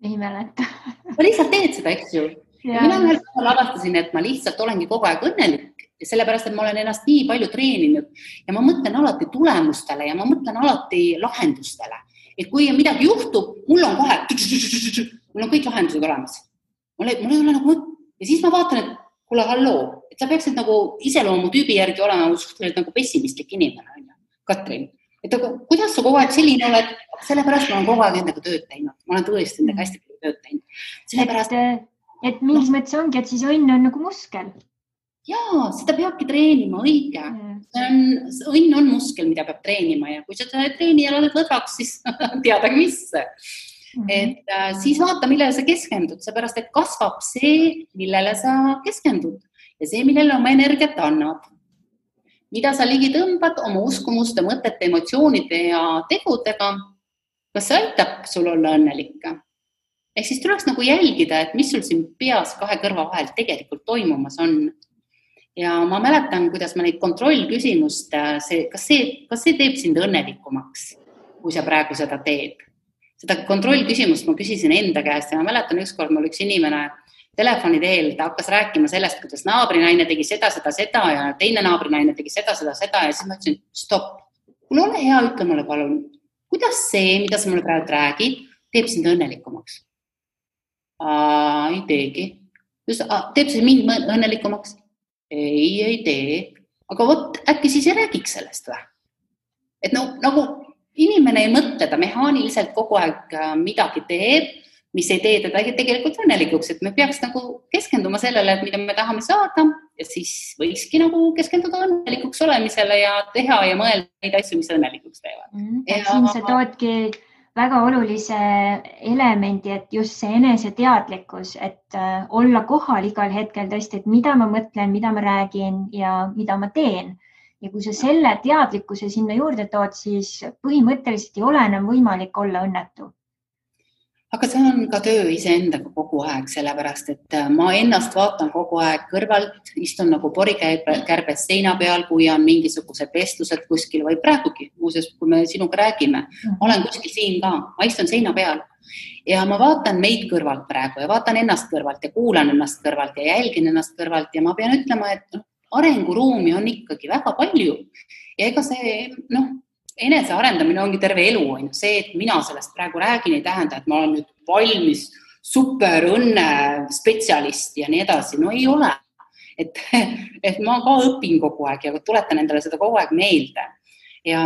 Ei mäleta. Ma lihtsalt teed seda, eks ju. Ja mina avastasin, et ma lihtsalt olengi kogu aeg õnnelik, sellepärast, et ma olen ennast nii palju treeninud ja ma mõtlen alati tulemustele ja ma mõtlen alati lahendustele. Et kui midagi juhtub, mul on kõik lahendused olemas. Mul ei ole nagu, ja siis ma vaatan, et kuule, halloo, et sa peaksid nagu iseloomu tüübi järgi olema nagu pessimistlik inimene, on ju, Katrin. Et kuidas sa kogu aeg selline oled? Sellepärast ma olen kogu aeg endaga tööd teinud. Ma olen tõesti endaga hästi palju tööd teinud. Sellepärast, et mingis mõttes ongi, et siis õnn on nagu muskel. Jaa, seda peabki treenima, õige. Õnn on muskel, mida peab treenima ja kui seda treeni ja oled lõdvaks, siis teadagi mis. Et siis vaata, millele sa keskendud, seepärast, et kasvab see, millele sa keskendud ja see, millele oma energiat annab. Mida sa ligi tõmbad oma uskumuste, mõtete, emotsioonide ja tegudega, kas see aitab sul olla õnnelikke? Ehk siis tuleks nagu jälgida, et mis sul siin peas kahe kõrva vahel tegelikult toimumas on. Ja ma mäletan, kuidas ma neid kontrollküsimust, kas see teeb sind õnnelikumaks, kui sa praegu seda teed. Seda kontrollküsimust ma küsisin enda käest ja ma mäletan ükskord mul üks inimene telefoni teel, ta hakkas rääkima sellest, kuidas naabrinaine tegi seda ja teine naabrinaine tegi seda ja siis ma ütlesin, stopp, kuule ole hea, ütle mulle palun, kuidas see, mida sa mulle praegu räägid, teeb sind õnnelikumaks? Ei teegi. Teeb see mind õnnelikumaks? Ei tee. Aga äkki siis ei räägiks sellest või? Et nagu inimene ei mõtle, ta mehaaniliselt kogu aeg midagi teeb, mis ei tee teda tegelikult õnnelikuks, et me peaks nagu keskenduma sellele, et mida me tahame saada ja siis võikski nagu keskenduda õnnelikuks olemisele ja teha ja mõelda neid asju, mis õnnelikuks teevad. Siin sa toodki väga olulise elemendi, et just see eneseteadlikkus, et olla kohal igal hetkel tõesti, et mida ma mõtlen, mida ma räägin ja mida ma teen. Ja kui sa selle teadlikkuse sinna juurde tood, siis põhimõtteliselt ei ole enam võimalik olla õnnetu. Aga see on ka töö iseendaga kogu aeg, sellepärast, et ma ennast vaatan kogu aeg kõrvalt, istun nagu porikärbes seina peal, kui on mingisugused vestlused kuskil või praegugi, muuseas, kui me sinuga räägime, olen kuskil siin ka, ma istun seina peal ja ma vaatan meid kõrvalt praegu ja vaatan ennast kõrvalt ja kuulan ennast kõrvalt ja jälgin ennast kõrvalt ja ma pean ütlema, et arenguruumi on ikkagi väga palju ja ega see, enese arendamine ongi terve elu, on ju. See, et mina sellest praegu räägin, ei tähenda, et ma olen nüüd valmis super õnne spetsialist ja nii edasi. No ei ole. Et ma ka õpin kogu aeg ja tuletan endale seda kogu aeg meelde. Ja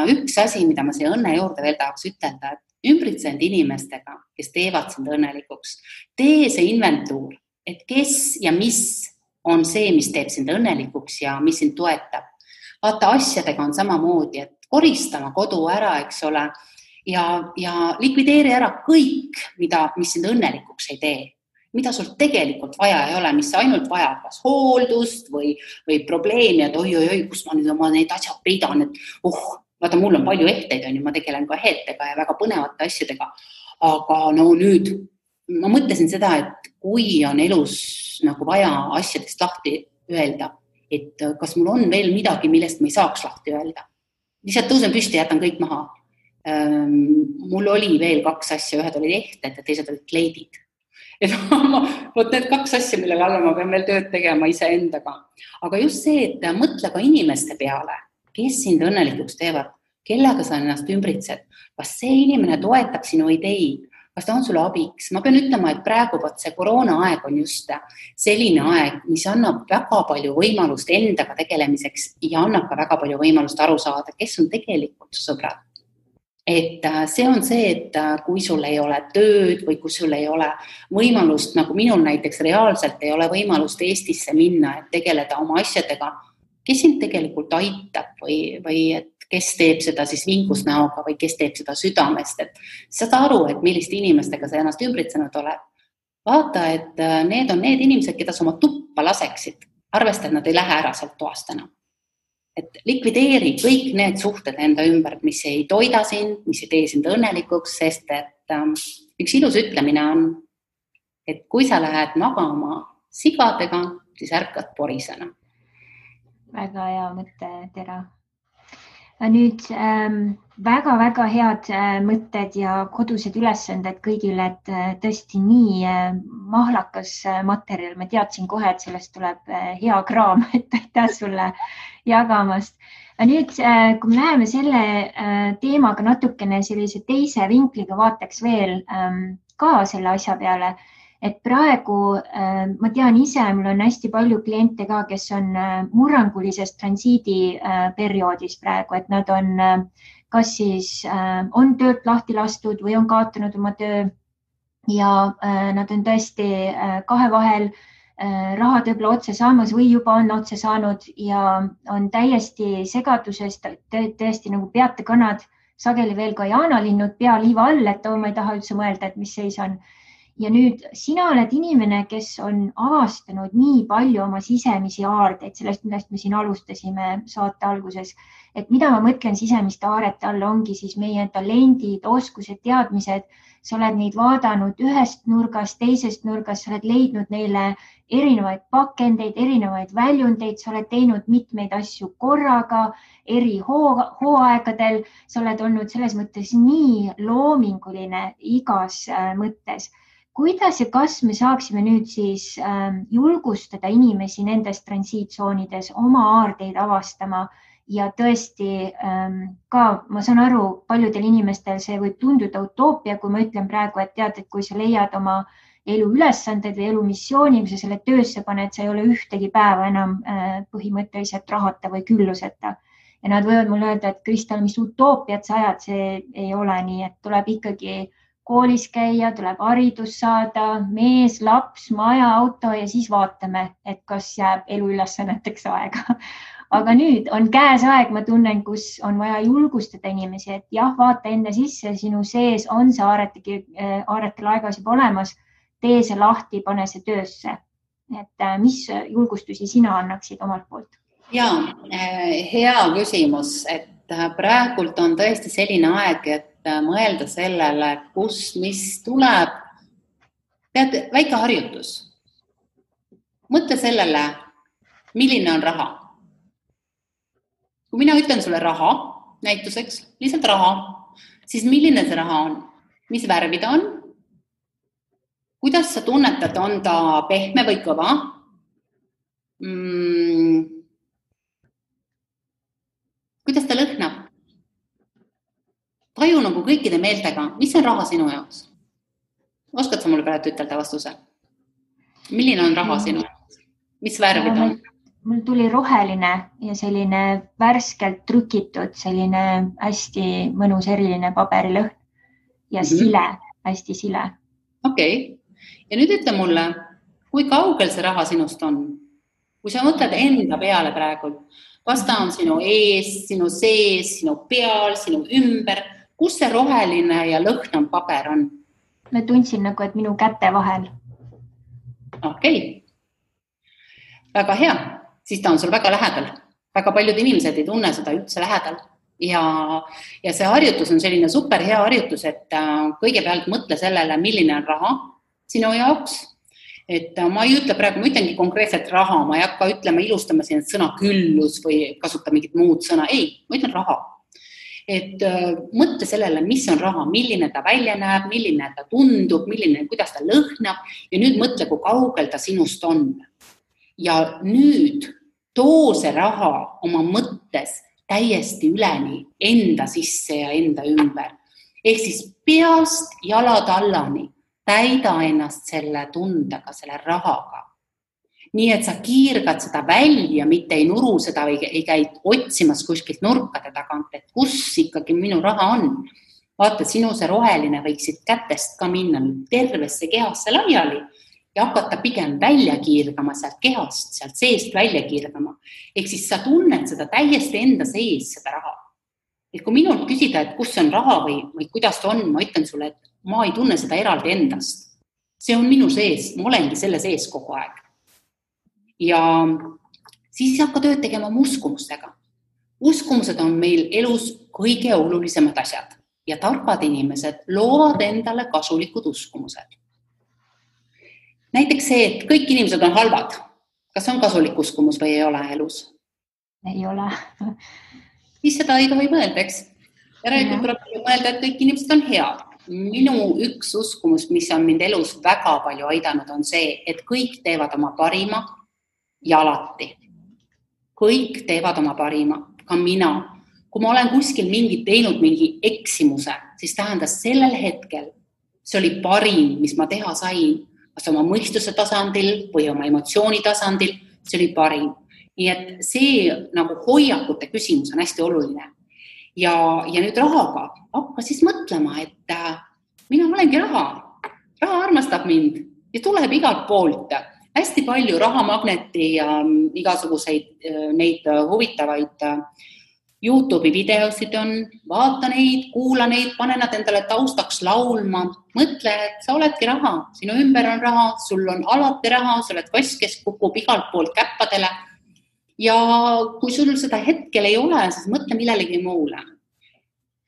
üks asi, mida ma siia õnne juurde veel tahaks ütelda, et ümbritsend inimestega, kes teevad sind õnnelikuks, tee see inventuur, et kes ja mis on see, mis teeb sind õnnelikuks ja mis sind toetab. Vaata, asjadega on samamoodi, et koristama kodu ära, eks ole, ja likvideeri ära kõik, mis sind õnnelikuks ei tee, mida sul tegelikult vaja ei ole, mis ainult vajab kas hooldust või probleemi, et oi, kus ma nüüd oma neid asjad peidan, et vaata, mul on palju ehteid, ma tegelen ka ehtega ja väga põnevate asjadega, aga nüüd ma mõtlesin seda, et kui on elus nagu vaja asjadest lahti öelda, et kas mul on veel midagi, millest ma ei saaks lahti öelda. Lihtsalt tõusen püsti ja jätan kõik maha. Mul oli veel 2 asja, ühed olid ehted ja teised olid kleidid. Võt need 2 asja, mille kallal ma pean veel tööd tegema iseendaga. Aga just see, et mõtle ka inimeste peale, kes sind õnnelikuks teevad, kellega sa ennast ümbritsed, kas see inimene toetab sinu ideid, kas ta on sulle abiks. Ma pean ütlema, et praegu see koroona aeg on just selline aeg, mis annab väga palju võimalust endaga tegelemiseks ja annab ka väga palju võimalust aru saada, kes on tegelikult sõbrad. Et see on see, et kui sul ei ole tööd või kui sul ei ole võimalust, nagu minul näiteks reaalselt ei ole võimalust Eestisse minna, et tegeleda oma asjadega, kes sind tegelikult aitab või et kes teeb seda siis vinkusnäoga või kes teeb seda südamest, et saad aru, et milliste inimestega sa ennast ümbritsenud oled. Vaata, et need on need inimesed, keda sa oma tuppa laseksid, arvesta, et nad ei lähe ära sealt toast enam. Et likvideeri kõik need suhted enda ümber, mis ei toida sind, mis ei tee sind õnnelikuks, sest et üks ilus ütlemine on, et kui sa lähed magama sigadega, siis ärkad porisena. Väga hea mõte, Tera. Nüüd väga-väga head mõtted ja kodused ülesanded kõigile, et tõesti nii mahlakas materjal. Ma teadsin kohe, et sellest tuleb hea kraam, et aitäh sulle jagamast. Nüüd, kui me läheme selle teemaga natukene sellise teise vinkliga vaataks veel ka selle asja peale, et praegu ma tean ise, mul on hästi palju kliente ka, kes on murrangulises transiidi perioodis praegu, et nad on kas siis on töölt lahti lastud või on kaotanud oma töö ja nad on tõesti kahe vahel rahad võib-olla otse saamas või juba on otse saanud ja on täiesti segaduses, tõesti nagu peatekanad, sageli veel ka jaanalinnud pea liiva all, et ma ei taha üldse mõelda, et mis seis on. Ja nüüd sina oled inimene, kes on avastanud nii palju oma sisemisi aardeid, sellest, millest me siin alustasime saate alguses, et mida ma mõtlen sisemiste aarete all ongi siis meie talendid, oskused, teadmised, sa oled neid vaadanud ühest nurgast, teisest nurgast, sa oled leidnud neile erinevaid pakendeid, erinevaid väljundeid, sa oled teinud mitmeid asju korraga, eri hooaegadel, sa oled olnud selles mõttes nii loominguline igas mõttes. Kuidas ja kas me saaksime nüüd siis julgustada inimesi nendes transiitsoonides oma aardeid avastama ja tõesti ka, ma saan aru, paljudel inimestel see võib tunduda utoopia, kui ma ütlen praegu, et tead, et kui sa leiad oma elu ülesanded või elu missiooni, kui sa selle töösse paned, sa ei ole ühtegi päeva enam põhimõtteliselt rahata või külluseta. ja nad võivad mulle öelda, et Kristel, mis utoopiat sa ajad, see ei ole nii, et tuleb ikkagi koolis käia, tuleb haridus saada, mees, laps, maja, auto ja siis vaatame, et kas jääb eluülesanneteks aega. Aga nüüd on käes aeg, ma tunnen, kus on vaja julgustada inimesi, et jah, vaata enne sisse, sinu sees on see aarete laegas juba olemas, tee see lahti, pane see töösse. Et mis julgustusi sina annaksid omalt poolt? Ja, hea küsimus, et praegult on tõesti selline aeg, et mõelda sellele, mis tuleb. Tead, väike harjutus. Mõtle sellele, milline on raha. Kui mina ütlen sulle raha, näituseks, lihtsalt raha, siis milline see raha on? Mis värvi ta on? Kuidas sa tunnetad, on ta pehme või kõva? Kuidas ta lõhnab? Taju nagu kõikide meeltega, mis on raha sinu jaoks? Oskad sa mulle praegu ütelda vastuse? Milline on raha sinu jaoks? Mis värvi ta on? Mul tuli roheline ja selline värskelt trükitud, selline hästi mõnus eriline paberilõhn ja sile, hästi sile. Okei. Ja nüüd ütle mulle, kui kaugel see raha sinust on? Kui sa mõtled enda peale praegu, kas ta on sinu ees, sinu sees, sinu peal, sinu ümber, kus see roheline ja lõhnav paber on? Ma tundsin nagu, et minu käte vahel. Okei. Väga hea. Siis ta on sul väga lähedal. Väga paljud inimesed ei tunne seda üldse lähedal. Ja see harjutus on selline super hea harjutus, et kõigepealt mõtle sellele, milline on raha sinu jaoks. Et ma ei ütle praegu, ma ütlengi konkreetselt raha, ma ei hakka ütlema, ilustama siin sõna küllus või kasuta mingit muud sõna. Ei, ma ütlen raha. Et mõtle sellele, mis on raha, milline ta välja näeb, milline ta tundub, kuidas ta lõhnab ja nüüd mõtle, kui kaugel ta sinust on. Ja nüüd too see raha oma mõttes täiesti üleni enda sisse ja enda ümber. Ehk siis peast jalad allani täida ennast selle tundega, selle rahaga. Nii, et sa kiirgad seda välja, mitte ei nuru seda või ei käi otsimas kuskilt nurkade tagant, et kus ikkagi minu raha on. Vaata, sinu see roheline võiksid kätest ka minna tervesse kehasse laiali ja hakata pigem välja kiirgama sealt kehast, sealt seest välja kiirgama. Ehk siis sa tunned seda täiesti enda sees, seda raha. Et kui minult küsida, et kus on raha või kuidas ta on, ma ütlen sulle, et ma ei tunne seda eraldi endast. See on minu sees, ma olengi selle sees kogu aeg. Ja siis hakka tööd tegema oma uskumustega. Uskumused on meil elus kõige olulisemad asjad ja targad inimesed loovad endale kasulikud uskumused. Näiteks see, et kõik inimesed on halvad. Kas on kasulik uskumus või ei ole elus? Ei ole. Siis seda ei tohi mõelda, eks? Järelikult tuleb mõelda, et kõik inimesed on head. Minu üks uskumus, mis on mind elus väga palju aidanud, on see, et kõik teevad oma parima ja alati. Kõik teevad oma parima, ka mina. Kui ma olen kuskil teinud mingi eksimuse, siis tähendas sellel hetkel, see oli parim, mis ma teha sain, kas oma mõistuse tasandil või oma emotsiooni tasandil, see oli parim. Nii et see nagu hoiakute küsimus on hästi oluline. Ja nüüd rahaga hakka siis mõtlema, et mina olengi raha. Raha armastab mind ja tuleb igalt poolt. Hästi palju rahamagneti ja igasuguseid neid huvitavaid YouTube'i videosid on. Vaata neid, kuula neid, pane nad endale taustaks laulma. Mõtle, et sa oledki raha. Sinu ümber on raha, sul on alati raha, sa oled kass, kes kukub igalt poolt käppadele. Ja kui sul seda hetkel ei ole, siis mõtle millelegi muule.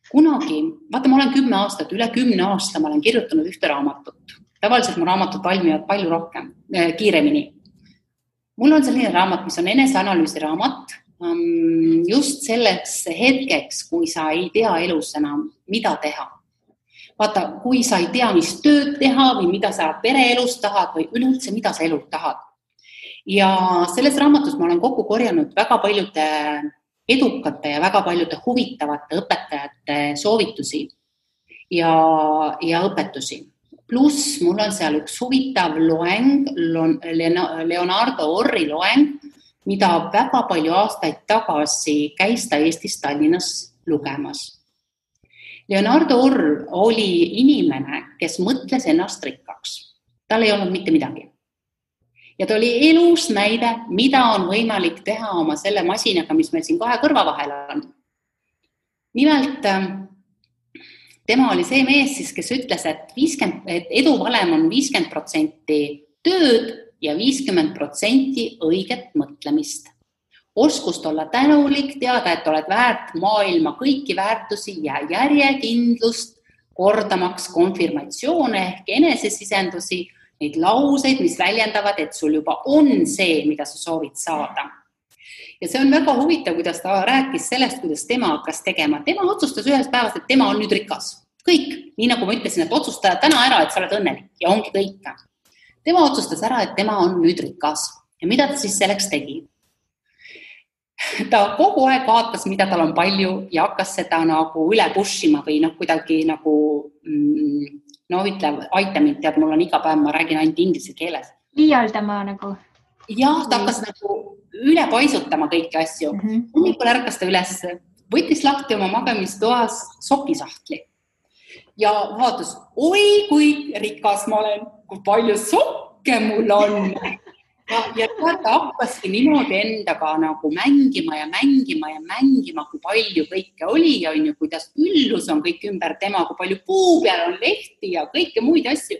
Kunagi, vaata, ma olen 10 aastat, üle 10 aasta ma olen kirjutanud ühte raamatut. Tavaliselt mu raamatud valmivad palju rohkem, kiiremini. Mul on selline raamat, mis on eneseanalüüsi raamat, just selleks hetkeks, kui sa ei tea elus enam, mida teha. Vaata, kui sa ei tea, mis tööd teha või mida sa pereelus tahad või üleüldse, mida sa elult tahad. Ja selles raamatus ma olen kokku korjanud väga paljude edukate ja väga paljude huvitavate õpetajate soovitusi ja õpetusi. Pluss mul on seal üks huvitav loeng, Leonardo Orri loeng, mida väga palju aastaid tagasi käis ta Eestis Tallinnas lugemas. Leonardo Orr oli inimene, kes mõtles ennast rikkaks. Tal ei olnud mitte midagi. Ja ta oli elus näide, mida on võimalik teha oma selle masinaga, mis meil siin 2 kõrva vahel on. Nimelt, tema oli see mees, siis, kes ütles, et eduvalem on 50% tööd ja 50% õiget mõtlemist. Oskust olla tänulik, teada, et oled väärt maailma kõiki väärtusi ja järjekindlust, kordamaks konfirmatsioone ehk enesesisendusi, neid lauseid, mis väljendavad, et sul juba on see, mida sa soovid saada. Ja see on väga huvitav, kuidas ta rääkis sellest, kuidas tema hakkas tegema. Tema otsustas ühes päevas, et tema on nüüd rikas. Kõik, nii nagu ma ütlesin, et otsusta täna ära, et sa oled õnnelik ja ongi kõik. Tema otsustas ära, et tema on nüüd rikas. Ja mida ta siis selleks tegi? Ta kogu aeg vaatas, mida tal on palju ja hakkas seda nagu üle pushima või kuidagi nagu... ütle, aita mind, tead, mul on iga päev, ma räägin ainult inglise keeles. Liialdama nagu. Jah, ta hakkas nagu üle paisutama kõiki asju. Hommikul ärkas ta üles, võttis lahti oma magamistoas sokisahtli. Ja vaatas, oi, kui rikas ma olen, kui palju sokke mul on. Ja ta hakkaski niimoodi endaga nagu mängima, kui palju kõike oli ja kuidas üllus on kõik ümber tema, kui palju puu peal on lehti ja kõike muid asju.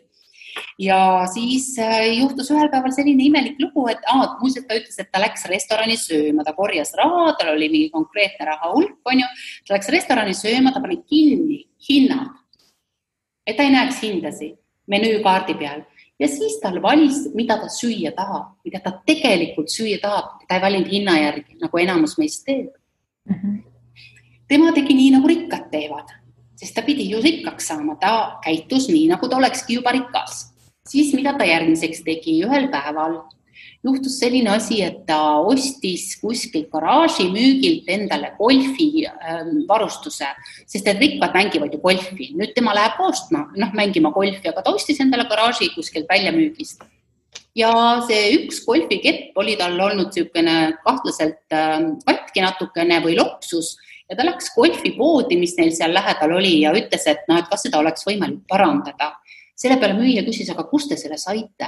Ja siis juhtus ühel päeval selline imelik lugu, et muuseas ta ütles, et ta läks restorani sööma, ta korjas raha, tal oli mingi konkreetne raha hulk, ta läks restorani sööma, ta pani kinni hinnad, et ta ei näeks hindasi menüükaardi peal. Ja siis tal valis, mida ta süüa tahab, mida ta tegelikult süüa tahab. Ta ei valinud hinna järgi, nagu enamus meist teeb. Tema tegi nii, nagu rikkad teevad, sest ta pidi ju rikkaks saama. Ta käitus nii, nagu ta olekski juba rikas. Siis mida ta järgmiseks tegi ühel päeval? Juhtus selline asi, et ta ostis kuskil garaaži müügilt endale golfi varustuse, sest et rikkad mängivad ju golfi. Nüüd tema läheb ostma, mängima golfi, aga ta ostis endale garaaži kuskilt väljamüügist. Ja see üks golfikepp oli tal olnud niisugune kahtlaselt katki natukene või loksus ja ta läks golfipoodi, mis neil seal lähedal oli ja ütles, et kas seda oleks võimalik parandada. Selle peale müüja küsis, aga kust te selle saite?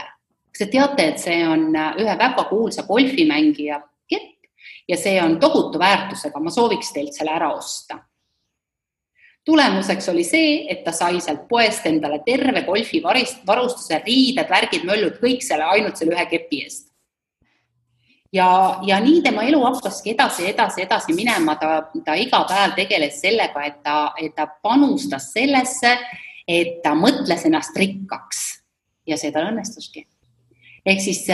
Kas te teate, et see on ühe väga kuulsa golfimängija kepp ja see on tohutu väärtusega, ma sooviks teilt selle ära osta. Tulemuseks oli see, et ta sai sealt poest endale terve golfi varustuse, riided, värgid, möllud, kõik selle ainult selle ühe kepi eest. Ja nii tema elu hakkaski edasi minema, ta iga päev tegeles sellega, et ta panustas sellesse, et ta mõtles ennast rikkaks ja see tal õnnestuski. Ehk siis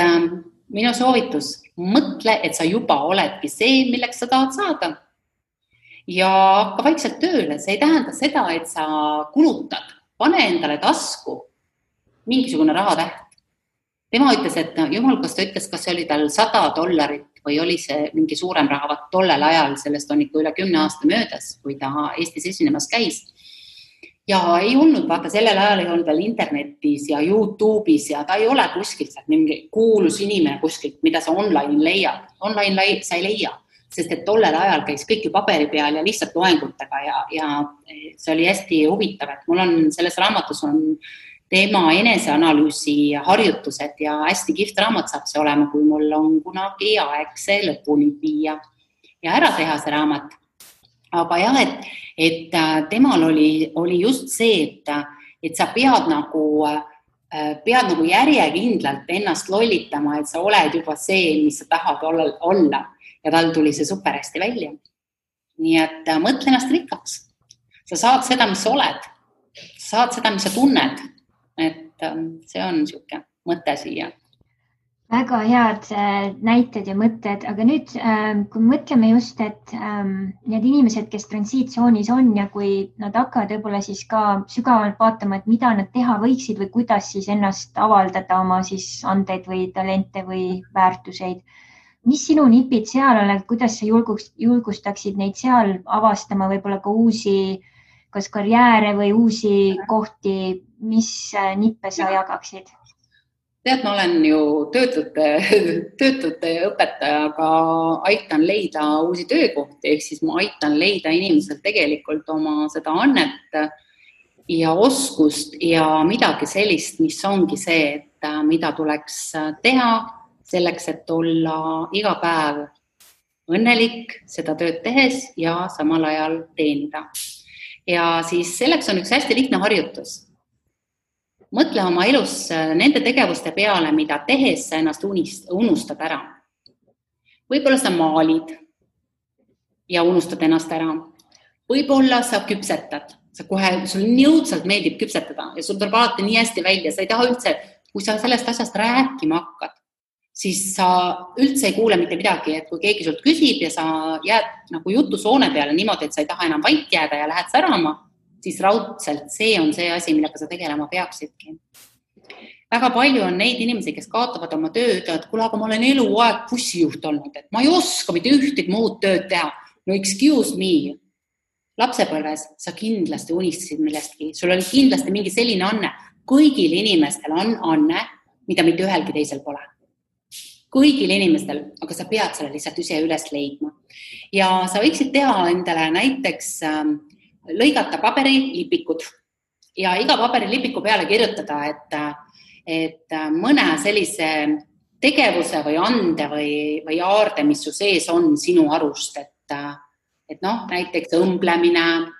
minu soovitus, mõtle, et sa juba oledki see, milleks sa tahad saada. Ja hakka vaikselt tööle, see ei tähenda seda, et sa kulutad, pane endale tasku mingisugune rahatäht. Tema ütles, et jumal, kas ta ütles, kas see oli tal $100 või oli see mingi suurem raha, tollel ajal, sellest on ikka üle 10 aasta möödas, kui ta Eestis esinemas käis. Ja ei olnud, vaata, sellel ajal ei olnud veel internetis ja YouTube'is ja ta ei ole kuskilt mingi kuulus inimene kuskilt, mida sa online leiad. Online sa ei leia, sest et tollel ajal käis kõik ju paberi peal ja lihtsalt loengutega ja see oli hästi huvitav, et mul on selles raamatus on tema eneseanalüüsi harjutused ja hästi kihvt raamat saab see olema, kui mul on kunagi aeg see lõpuni viia ja ära teha see raamat. Aga jah, et temal oli just see, et sa pead nagu järjekindlalt ennast lollitama, et sa oled juba see, mis sa tahad olla. Ja tal tuli see super hästi välja. Nii et mõtle ennast rikkaks. Sa saad seda, mis sa oled. Sa saad seda, mis sa tunned. Et see on niisugune mõte siia. Väga head näited ja mõtted, aga nüüd, kui mõtleme just, et need inimesed, kes transiitsoonis on ja kui nad hakkavad võib-olla siis ka sügavalt vaatama, et mida nad teha võiksid või kuidas siis ennast avaldada oma siis andeid või talente või väärtuseid. Mis sinu nipid seal on, kuidas sa julgustaksid neid seal avastama võib-olla ka uusi kas karjääre või uusi kohti, mis nippe sa jagaksid? Tead, ma olen ju töötute õpetaja, aga aitan leida uusi töökohti, ehk siis ma aitan leida inimesel tegelikult oma seda annet ja oskust ja midagi sellist, mis ongi see, et mida tuleks teha selleks, et olla iga päev õnnelik seda tööd tehes ja samal ajal teenida. Ja siis selleks on üks hästi lihtne harjutus. Mõtle oma elus nende tegevuste peale, mida tehes sa ennast unustad ära. Võib-olla sa maalid ja unustad ennast ära. Võib-olla sa küpsetad. Sul nii õudselt meeldib küpsetada ja sul tuleb alati nii hästi välja. Sa ei taha üldse, kui sa sellest asjast rääkima hakkad, siis sa üldse ei kuule mitte midagi. Et kui keegi sult küsib ja sa jääd nagu jutusoone peale niimoodi, et sa ei taha enam vait jääda ja lähed särama, siis raudselt see on see asi, millega sa tegelema peaksidki. Väga palju on neid inimesi, kes kaotavad oma tööd, et kuule, aga ma olen eluaeg bussijuht olnud, et ma ei oska mitte ühtegi muud tööd teha. No excuse me. Lapsepõlves sa kindlasti unistasid millestki. Sul oli kindlasti mingi selline anne. Kõigil inimestel on anne, mida mitte ühelgi teisel pole. Kõigil inimestel, aga sa pead selle lihtsalt ise üles leidma. Ja sa võiksid teha endale näiteks lõigata paberilipikud ja iga paberilipiku peale kirjutada, et mõne sellise tegevuse või ande või aarde, mis su sees on sinu arust, et näiteks õmblemine,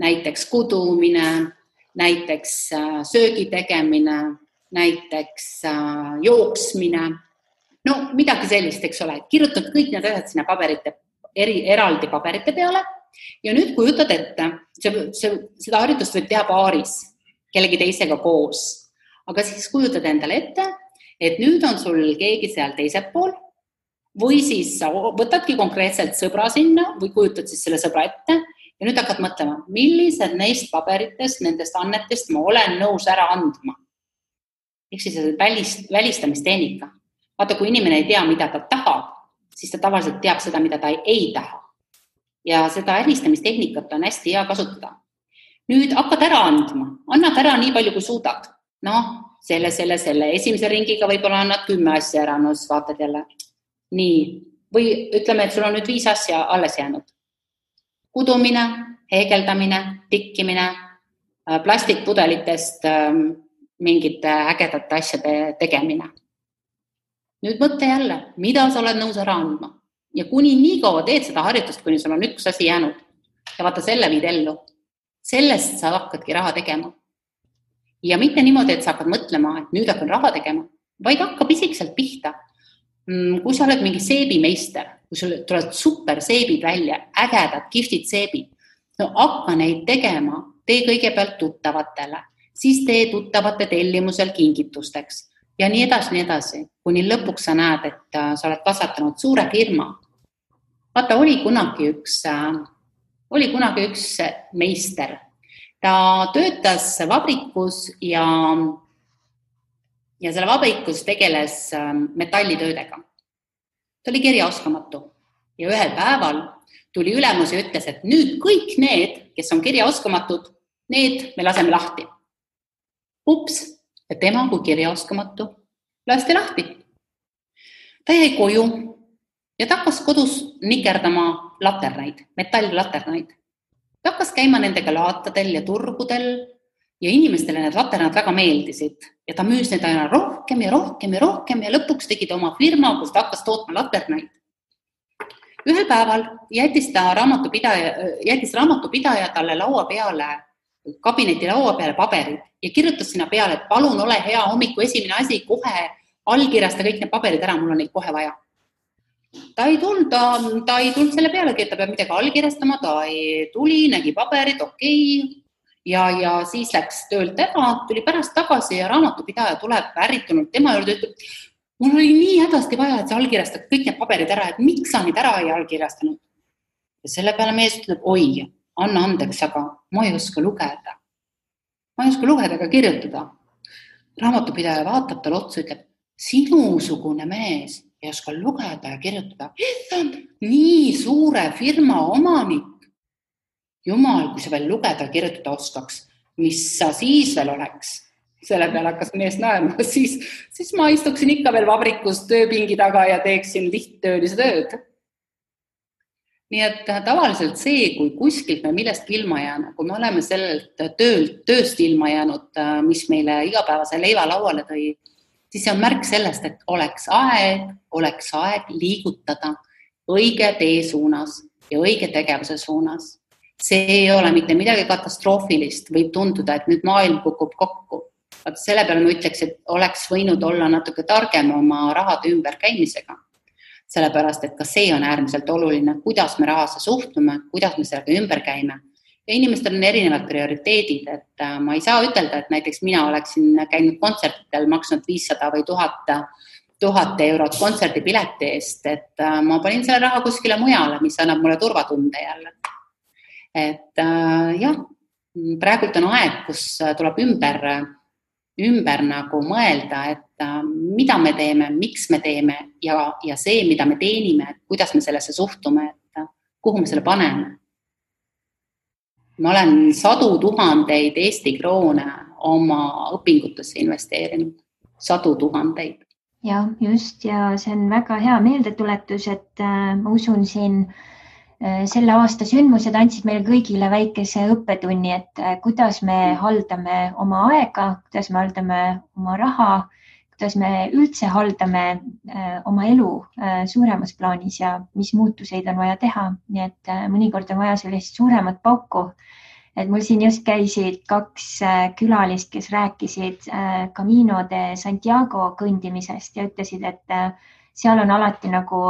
näiteks kudumine, näiteks söögi tegemine, näiteks jooksmine, midagi sellist, eks ole, kirjutad kõik need asjad sinna eraldi paberite peale. Ja nüüd kujutad ette, seda harjutust võib teha paaris, kellegi teisega koos. Aga siis kujutad endale ette, et nüüd on sul keegi seal teisel pool või siis sa võtadki konkreetselt sõbra sinna või kujutad siis selle sõbra ette ja nüüd hakkad mõtlema, millised neist paberitest, nendest annetest ma olen nõus ära andma. Ehk siis välistamistehnika. Vaata, kui inimene ei tea, mida ta tahab, siis ta tavaliselt teab seda, mida ta ei taha. Ja seda äristamisteknikat on hästi hea kasutada. Nüüd hakkad ära andma. Annad ära nii palju, kui suudad. Selle. Esimese ringiga võib-olla annad 10 asja ära, siis vaatad jälle. Nii. Või ütleme, et sul on nüüd 5 asja alles jäänud. Kudumine, heegeldamine, tikkimine, plastikpudelitest mingite ägedate asjade tegemine. Nüüd mõtle jälle, mida sa oled nõus ära andma. Ja kuni nii kaua teed seda harjutust, kuni sul on üks asi jäänud ja vaata selle viid ellu, sellest sa hakkadki raha tegema. Ja mitte niimoodi, et sa hakkad mõtlema, et nüüd hakkan raha tegema, vaid hakkab isikselt pihta. Kui sa oled mingi seebimeister, kui sul tulevad super seebid välja, ägedad, kihvtid seebid, hakka neid tegema, tee kõigepealt tuttavatele, siis tee tuttavate tellimusel kingitusteks. Ja nii edasi, kuni lõpuks sa näed, et sa oled kasvatanud suure firma. Vaata, oli kunagi üks meister. Ta töötas vabrikus ja selle vabrikus tegeles metallitöödega. Ta oli kirjaoskamatu ja ühel päeval tuli ülemus ja ütles, et nüüd kõik need, kes on kirjaoskamatud, need me laseme lahti. Ups! Ja tema kui kirjaoskamatu lasti lahti. Ta jäi koju ja ta hakkas kodus nikerdama laternaid, metalllaternaid. Ta hakkas käima nendega laatadel ja turgudel ja inimestele need laternad väga meeldisid. Ja ta müüs neid aina rohkem ja lõpuks tegi ta oma firma, kus ta hakkas tootma laternaid. Ühel päeval jättis raamatupidaja talle kabineti laua peale paberid ja kirjutas sinna peale, et palun ole hea hommiku esimene asi, kohe allkirjasta kõik need paberid ära, mul on neid kohe vaja. Ta ei tulnud selle pealegi, et ta peab midagi allkirjastama, ta ei tuli, nägi paberid, okei. Ja siis läks töölt ära, tuli pärast tagasi ja raamatupidaja tuleb ärritunud tema juurde, ütleb, mul oli nii hädasti vaja, et sa allkirjastad kõik need paberid ära, et miks sa neid ära ei allkirjastanud. Ja selle peale mees ütleb, oi, anna andeks, aga ma ei oska lugeda. Ma ei oska lugeda ega kirjutada. Raamatupidaja vaatab tal otsa, ütleb, sinusugune mees ei oska lugeda ja kirjutada. Nii suure firma omanik. Jumal, kui sa veel lugeda ja kirjutada oskaks, mis sa siis veel oleks? Selle peale hakkas mees naerma, siis ma istuksin ikka veel vabrikus tööpingi taga ja teeksin lihttöölise tööd. Nii et tavaliselt see, kui kuskilt me millestki ilma jääme, kui me oleme sellelt tööst ilma jäänud, mis meile igapäevase leiva lauale tõi, siis see on märk sellest, et oleks aeg liigutada õige tee suunas ja õige tegevuse suunas. See ei ole mitte midagi katastroofilist, võib tunduda, et nüüd maailm kukub kokku. Selle peale ma ütleks, et oleks võinud olla natuke targem oma rahade ümberkäimisega. Sellepärast, et ka see on äärmiselt oluline, kuidas me rahasse suhtume, kuidas me sellega ümber käime. Ja inimestel on erinevad prioriteedid, et ma ei saa ütelda, et näiteks mina oleksin käinud kontsertidel, maksnud 500 või 1000 eurot kontserdipileti eest, et ma panin selle raha kuskile mujale, mis annab mulle turvatunde jälle. Et jah, praegult on aeg, kus tuleb ümber nagu mõelda, et mida me teeme, miks me teeme ja see, mida me teenime, et kuidas me sellesse suhtume, et kuhu me selle paneme. Ma olen 100 000 Eesti kroone oma õpingutesse investeerinud. 100 000. Ja just, ja see on väga hea meeldetuletus, et ma usun siin selle aasta sündmused andsid meile kõigile väikese õppetunni, et kuidas me haldame oma aega, kuidas me haldame oma raha, kuidas me üldse haldame oma elu suuremas plaanis ja mis muutuseid on vaja teha. Nii et mõnikord on vaja sellist suuremat pauku. Et mul siin just käisid 2 külalist, kes rääkisid Camino de Santiago kõndimisest ja ütlesid, et seal on alati nagu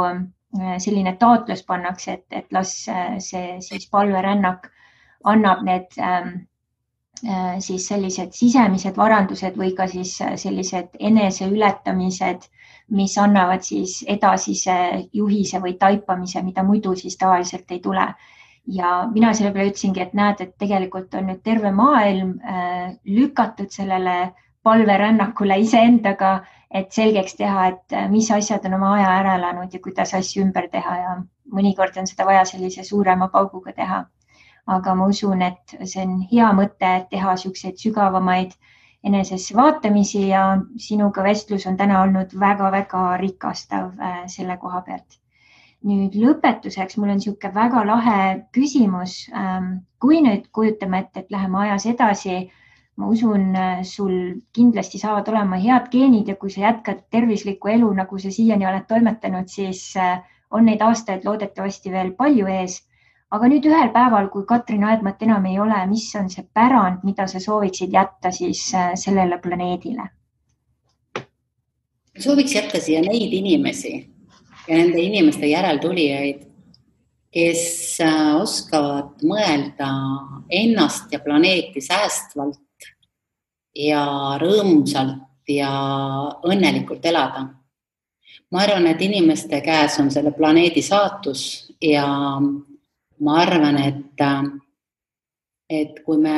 selline taotlus pannakse, et las see siis palverännak annab need siis sellised sisemised varandused või ka siis sellised eneseületamised, mis annavad siis edasise juhise või taipamise, mida muidu siis tavaliselt ei tule. Ja mina selle peale ütlesingi, et näed, et tegelikult on nüüd terve maailm lükatud sellele palverännakule iseendaga, et selgeks teha, et mis asjad on oma aja ära elanud ja kuidas asju ümber teha ja mõnikord on seda vaja sellise suurema pauguga teha. Aga ma usun, et see on hea mõte teha selliseid sügavamaid enesesse vaatamisi ja sinuga vestlus on täna olnud väga-väga rikastav selle koha pealt. Nüüd lõpetuseks mul on selline väga lahe küsimus. Kui nüüd kujutame, et läheme ajas edasi, ma usun, sul kindlasti saavad olema head geenid ja kui sa jätkad tervislikku elu, nagu sa siiani oled toimetanud, siis on neid aastaid loodetavasti veel palju ees. Aga nüüd ühel päeval, kui Katrin Aedmat enam ei ole, mis on see pärand, mida sa sooviksid jätta siis sellele planeedile? Sooviks jätta siia neid inimesi ja nende inimeste järeltulijaid, kes oskavad mõelda ennast ja planeeti säästvalt ja rõõmsalt ja õnnelikult elada. Ma arvan, et inimeste käes on selle planeedi saatus ja ma arvan, et kui me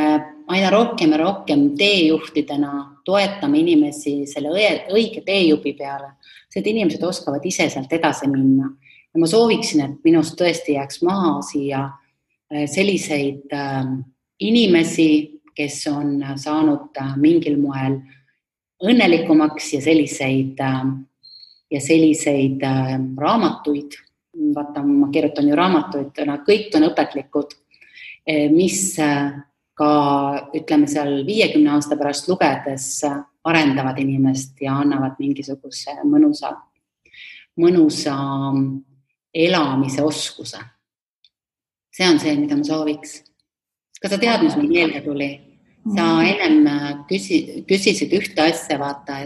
aina rohkem ja rohkem teejuhtidena toetame inimesi selle õige teejupi peale, et inimesed oskavad ise sealt edasi minna. Ja ma sooviksin, et minust tõesti jääks maha siia selliseid inimesi, kes on saanud mingil moel õnnelikumaks ja selliseid raamatuid. Vaata, ma kirjutan ju raamatuid, kõik on õpetlikud, mis ka, ütleme seal 50 aasta pärast lugedes arendavad inimest ja annavad mingisuguse mõnusa elamise oskuse. See on see, mida ma sooviks. Kas sa tead, mis mul meelde tuli? Sa ennem küsisid ühte asja, vaata,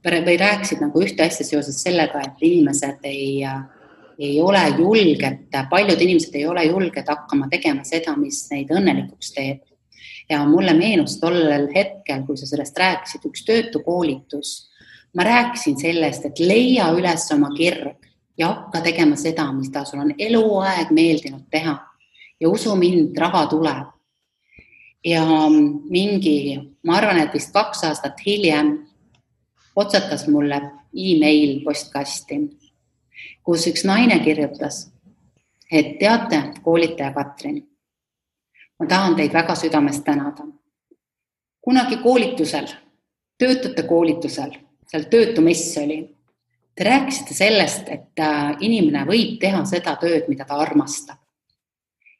või rääkisid nagu ühte asja seoses sellega, et inimesed ei ole julged, paljud inimesed ei ole julged hakkama tegema seda, mis neid õnnelikuks teeb. Ja mulle meenus tollel hetkel, kui sa sellest rääkisid, üks töötukoolitus. Ma rääkisin sellest, et leia üles oma kirg ja hakka tegema seda, mis ta sul on eluaeg meeldinud teha. Ja usu mind, raha tuleb. Ja ma arvan, et vist 2 aastat hiljem otsatas mulle e-mail postkasti, kus üks naine kirjutas, et teate, koolitaja Katrin, ma tahan teid väga südamest tänada. Kunagi koolitusel töötute koolitusel, seal töötumess oli. Te rääkisite sellest, et inimene võib teha seda tööd, mida ta armastab.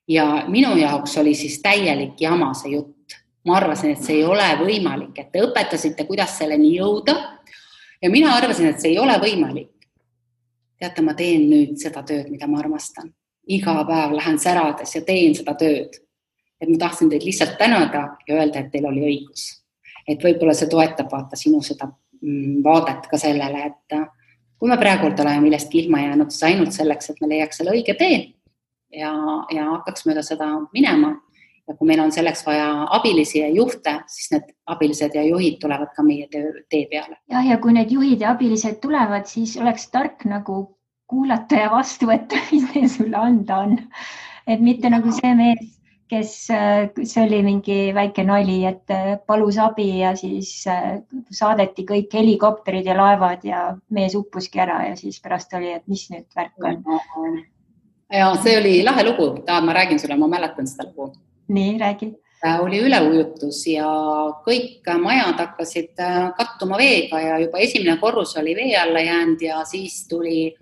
Ja minu jaoks oli siis täielik jama see jutt. Ma arvasin, et see ei ole võimalik, et te õpetasite, kuidas selleni jõuda. Ja mina arvasin, et see ei ole võimalik. Teate, ma teen nüüd seda tööd, mida ma armastan. Iga päev lähen särades ja teen seda tööd. Et ma tahtsin teid lihtsalt tänada ja öelda, et teil oli õigus. Et võib-olla see toetab vaata sinu seda vaadet ka sellele, et kui me praegu oleme millestki ilma jäänud, siis ainult selleks, et me leiaks selle õige tee ja hakkaks mööda seda minema. Ja kui meil on selleks vaja abilisi ja juhte, siis need abilised ja juhid tulevad ka meie tee peale. Ja kui need juhid ja abilised tulevad, siis oleks tark nagu kuulata ja vastu võtta, mis neil sulle anda on. Et mitte nagu see mees, kes see oli mingi väike nali, et palus abi ja siis saadeti kõik helikopterid ja laevad ja mees uppuski ära ja siis pärast oli, et mis nüüd värk on. Ja see oli lahe lugu. Ma räägin sulle, ma mäletan seda lugu. Nii, räägi. Oli üleujutus ja kõik majad hakkasid kattuma veega ja juba esimene korrus oli vee alla jäänud ja siis tuli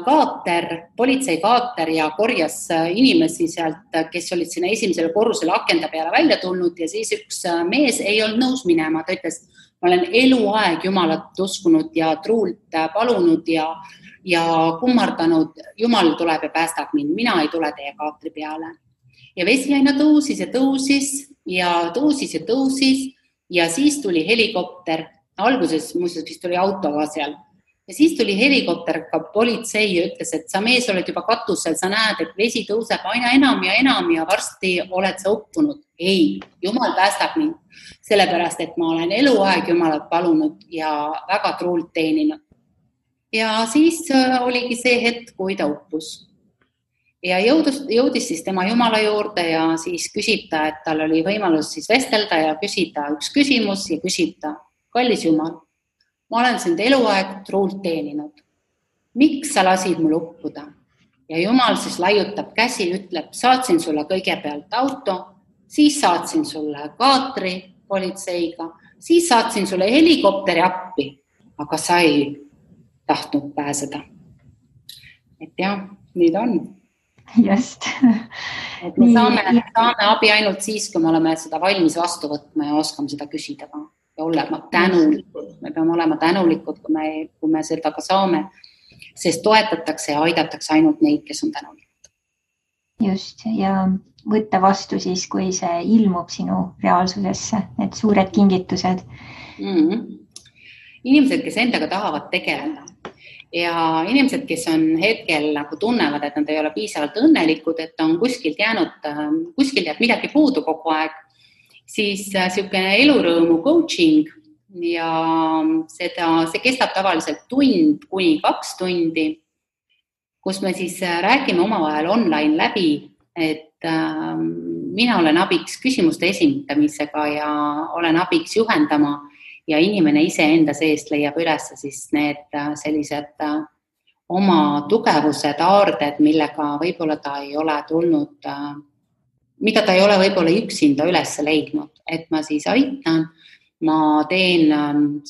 kaater, politseikaater ja korjas inimesi sealt, kes olid sinna esimesele korrusele akenda peale välja tulnud ja siis üks mees ei olnud nõus minema. Ta ütles, ma olen eluaeg Jumalat uskunud ja truult palunud ja kummardanud. Jumal tuleb ja päästab mind, mina ei tule teie kaatri peale. Ja vesi aina tõusis ja tõusis ja tõusis ja tõusis ja siis tuli helikopter. Alguses muuseas vist tuli auto ka seal. Ja siis tuli helikopter, ka politsei ja ütles, et sa mees oled juba katusel, sa näed, et vesi tõuseb aina enam ja varsti oled sa uppunud. Ei, Jumal päästab mind, sellepärast, et ma olen eluaeg Jumalat palunud ja väga truult teeninud. Ja siis oligi see hetk, kui ta uppus. Ja jõudis siis tema Jumala juurde ja siis küsib ta, et tal oli võimalus siis vestelda ja küsida üks küsimus ja küsib ta, kallis Jumal, ma olen sind eluaeg truult teeninud. Miks sa lasid mul uppuda? Ja Jumal siis laiutab käsi, ütleb, saatsin sulle kõigepealt auto, siis saatsin sulle kaatri politseiga, siis saatsin sulle helikopteri appi, aga sa ei tahtnud pääseda. Et jah, nii ta on. Just. Et me saame abi ainult siis, kui me oleme seda valmis vastu võtma ja oskame seda küsida ka. Ja olema tänulikud. Me peame olema tänulikud, kui me seda ka saame, sest toetatakse ja aidatakse ainult neid, kes on tänulikud. Just, ja võtta vastu siis, kui see ilmub sinu reaalsusesse, need suured kingitused. Inimesed, kes endaga tahavad tegeleda. Ja inimesed, kes on hetkel nagu tunnevad, et nad ei ole piisavalt õnnelikud, et on kuskil jääb midagi puudu kogu aeg, siis selline elurõõmu coaching ja see kestab tavaliselt 1 kuni 2 tundi, kus me siis räägime omavahel online läbi, et mina olen abiks küsimuste esindamisega ja olen abiks juhendama ja inimene ise enda seest leiab üles siis need sellised oma tugevused, aarded, millega võib-olla ta ei ole tulnud, mida ta ei ole võib-olla üksinda üles leidnud, et ma siis aitan. Ma teen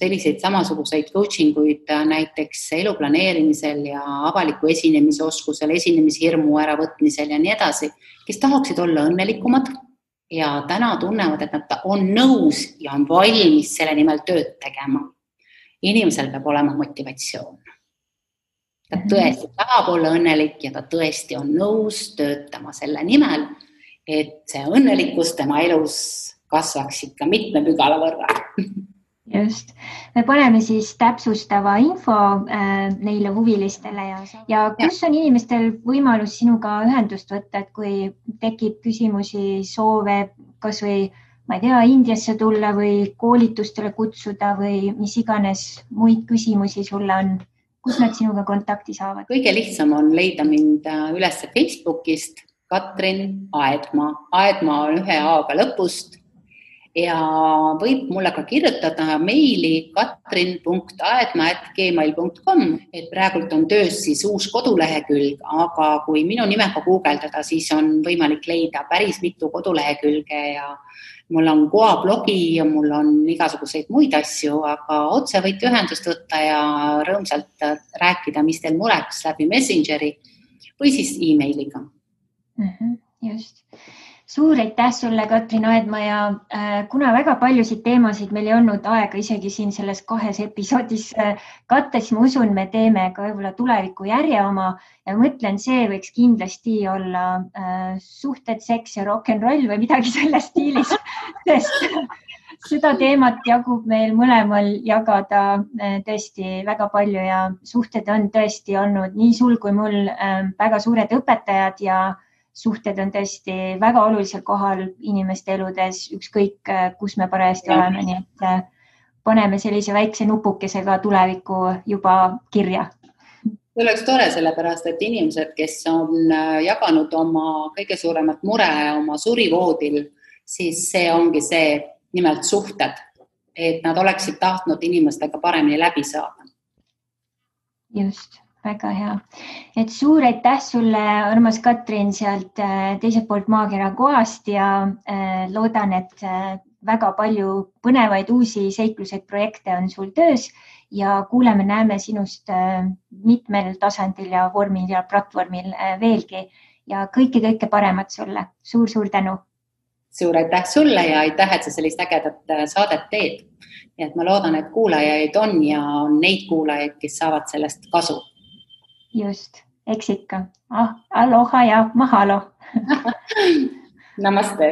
selliseid samasuguseid coachinguid näiteks elu planeerimisel ja avaliku esinemise oskusel, esinemishirmu äravõtmisel ja nii edasi, kes tahaksid olla õnnelikumad. Ja täna tunnevad, et nad on nõus ja on valmis selle nimel tööd tegema. Inimesel peab olema motivatsioon. Ta tõesti tahab olla õnnelik ja ta tõesti on nõus töötama selle nimel, et see õnnelikkus tema elus kasvaks ikka mitme pügala võrra. Just. Me paneme siis täpsustava info neile huvilistele ja kus on inimestel võimalus sinuga ühendust võtta, et kui tekib küsimusi, soove, kas või, ma ei tea, Indiasse tulla või koolitustele kutsuda või mis iganes muid küsimusi sulle on, kus nad sinuga kontakti saavad? Kõige lihtsam on leida mind üles Facebookist, Katrin Aedmaa. Aedmaa on 1 A-ga lõpust. Ja võib mulle ka kirjutada meili katrin.aedma@gmail.com, et praegult on töös siis uus kodulehekülg, aga kui minu nimega guugeldada, siis on võimalik leida päris mitu kodulehekülge mul on Goa blogi ja mul on igasuguseid muid asju, aga otse võite ühendust võtta ja rõõmsalt rääkida, mis teil mureks läbi Messengeri või siis e-mailiga. Just. Suur aitäh sulle, Katrin Aedma, ja kuna väga paljusid teemasid meil ei olnud aega isegi siin selles 2 episoodis katta, siis ma usun, me teeme ka võib-olla tuleviku järje oma ja mõtlen, see võiks kindlasti olla suhted, seks ja rock'n'roll või midagi selles stiilis, sest seda teemat jagub meil mõlemal jagada tõesti väga palju ja suhted on tõesti olnud nii sul kui mul väga suured õpetajad ja suhted on tõesti väga olulisel kohal inimeste eludes, ükskõik kus me parajasti oleme, nii et paneme sellise väikse nupukesega tuleviku juba kirja. See oleks tore, sellepärast, et inimesed, kes on jaganud oma kõige suuremat mure oma surivoodil, siis see ongi see nimelt suhted, et nad oleksid tahtnud inimestega paremini läbi saada. Just. Väga hea. Et suur aitäh sulle, armas Katrin, sealt teiselt poolt maakera Goast ja loodan, et väga palju põnevaid uusi seikluseid projekte on sul töös ja kuuleme-näeme sinust mitmel tasandil ja vormil ja platvormil veelgi ja kõike paremat sulle. Suur tänu. Suur aitäh sulle ja aitäh, et sa sellist ägedat saadet teed. Ja et ma loodan, et kuulajaid on ja on neid kuulajaid, kes saavad sellest kasu. Just, eks ikka. Aloha ja mahalo. Namaste.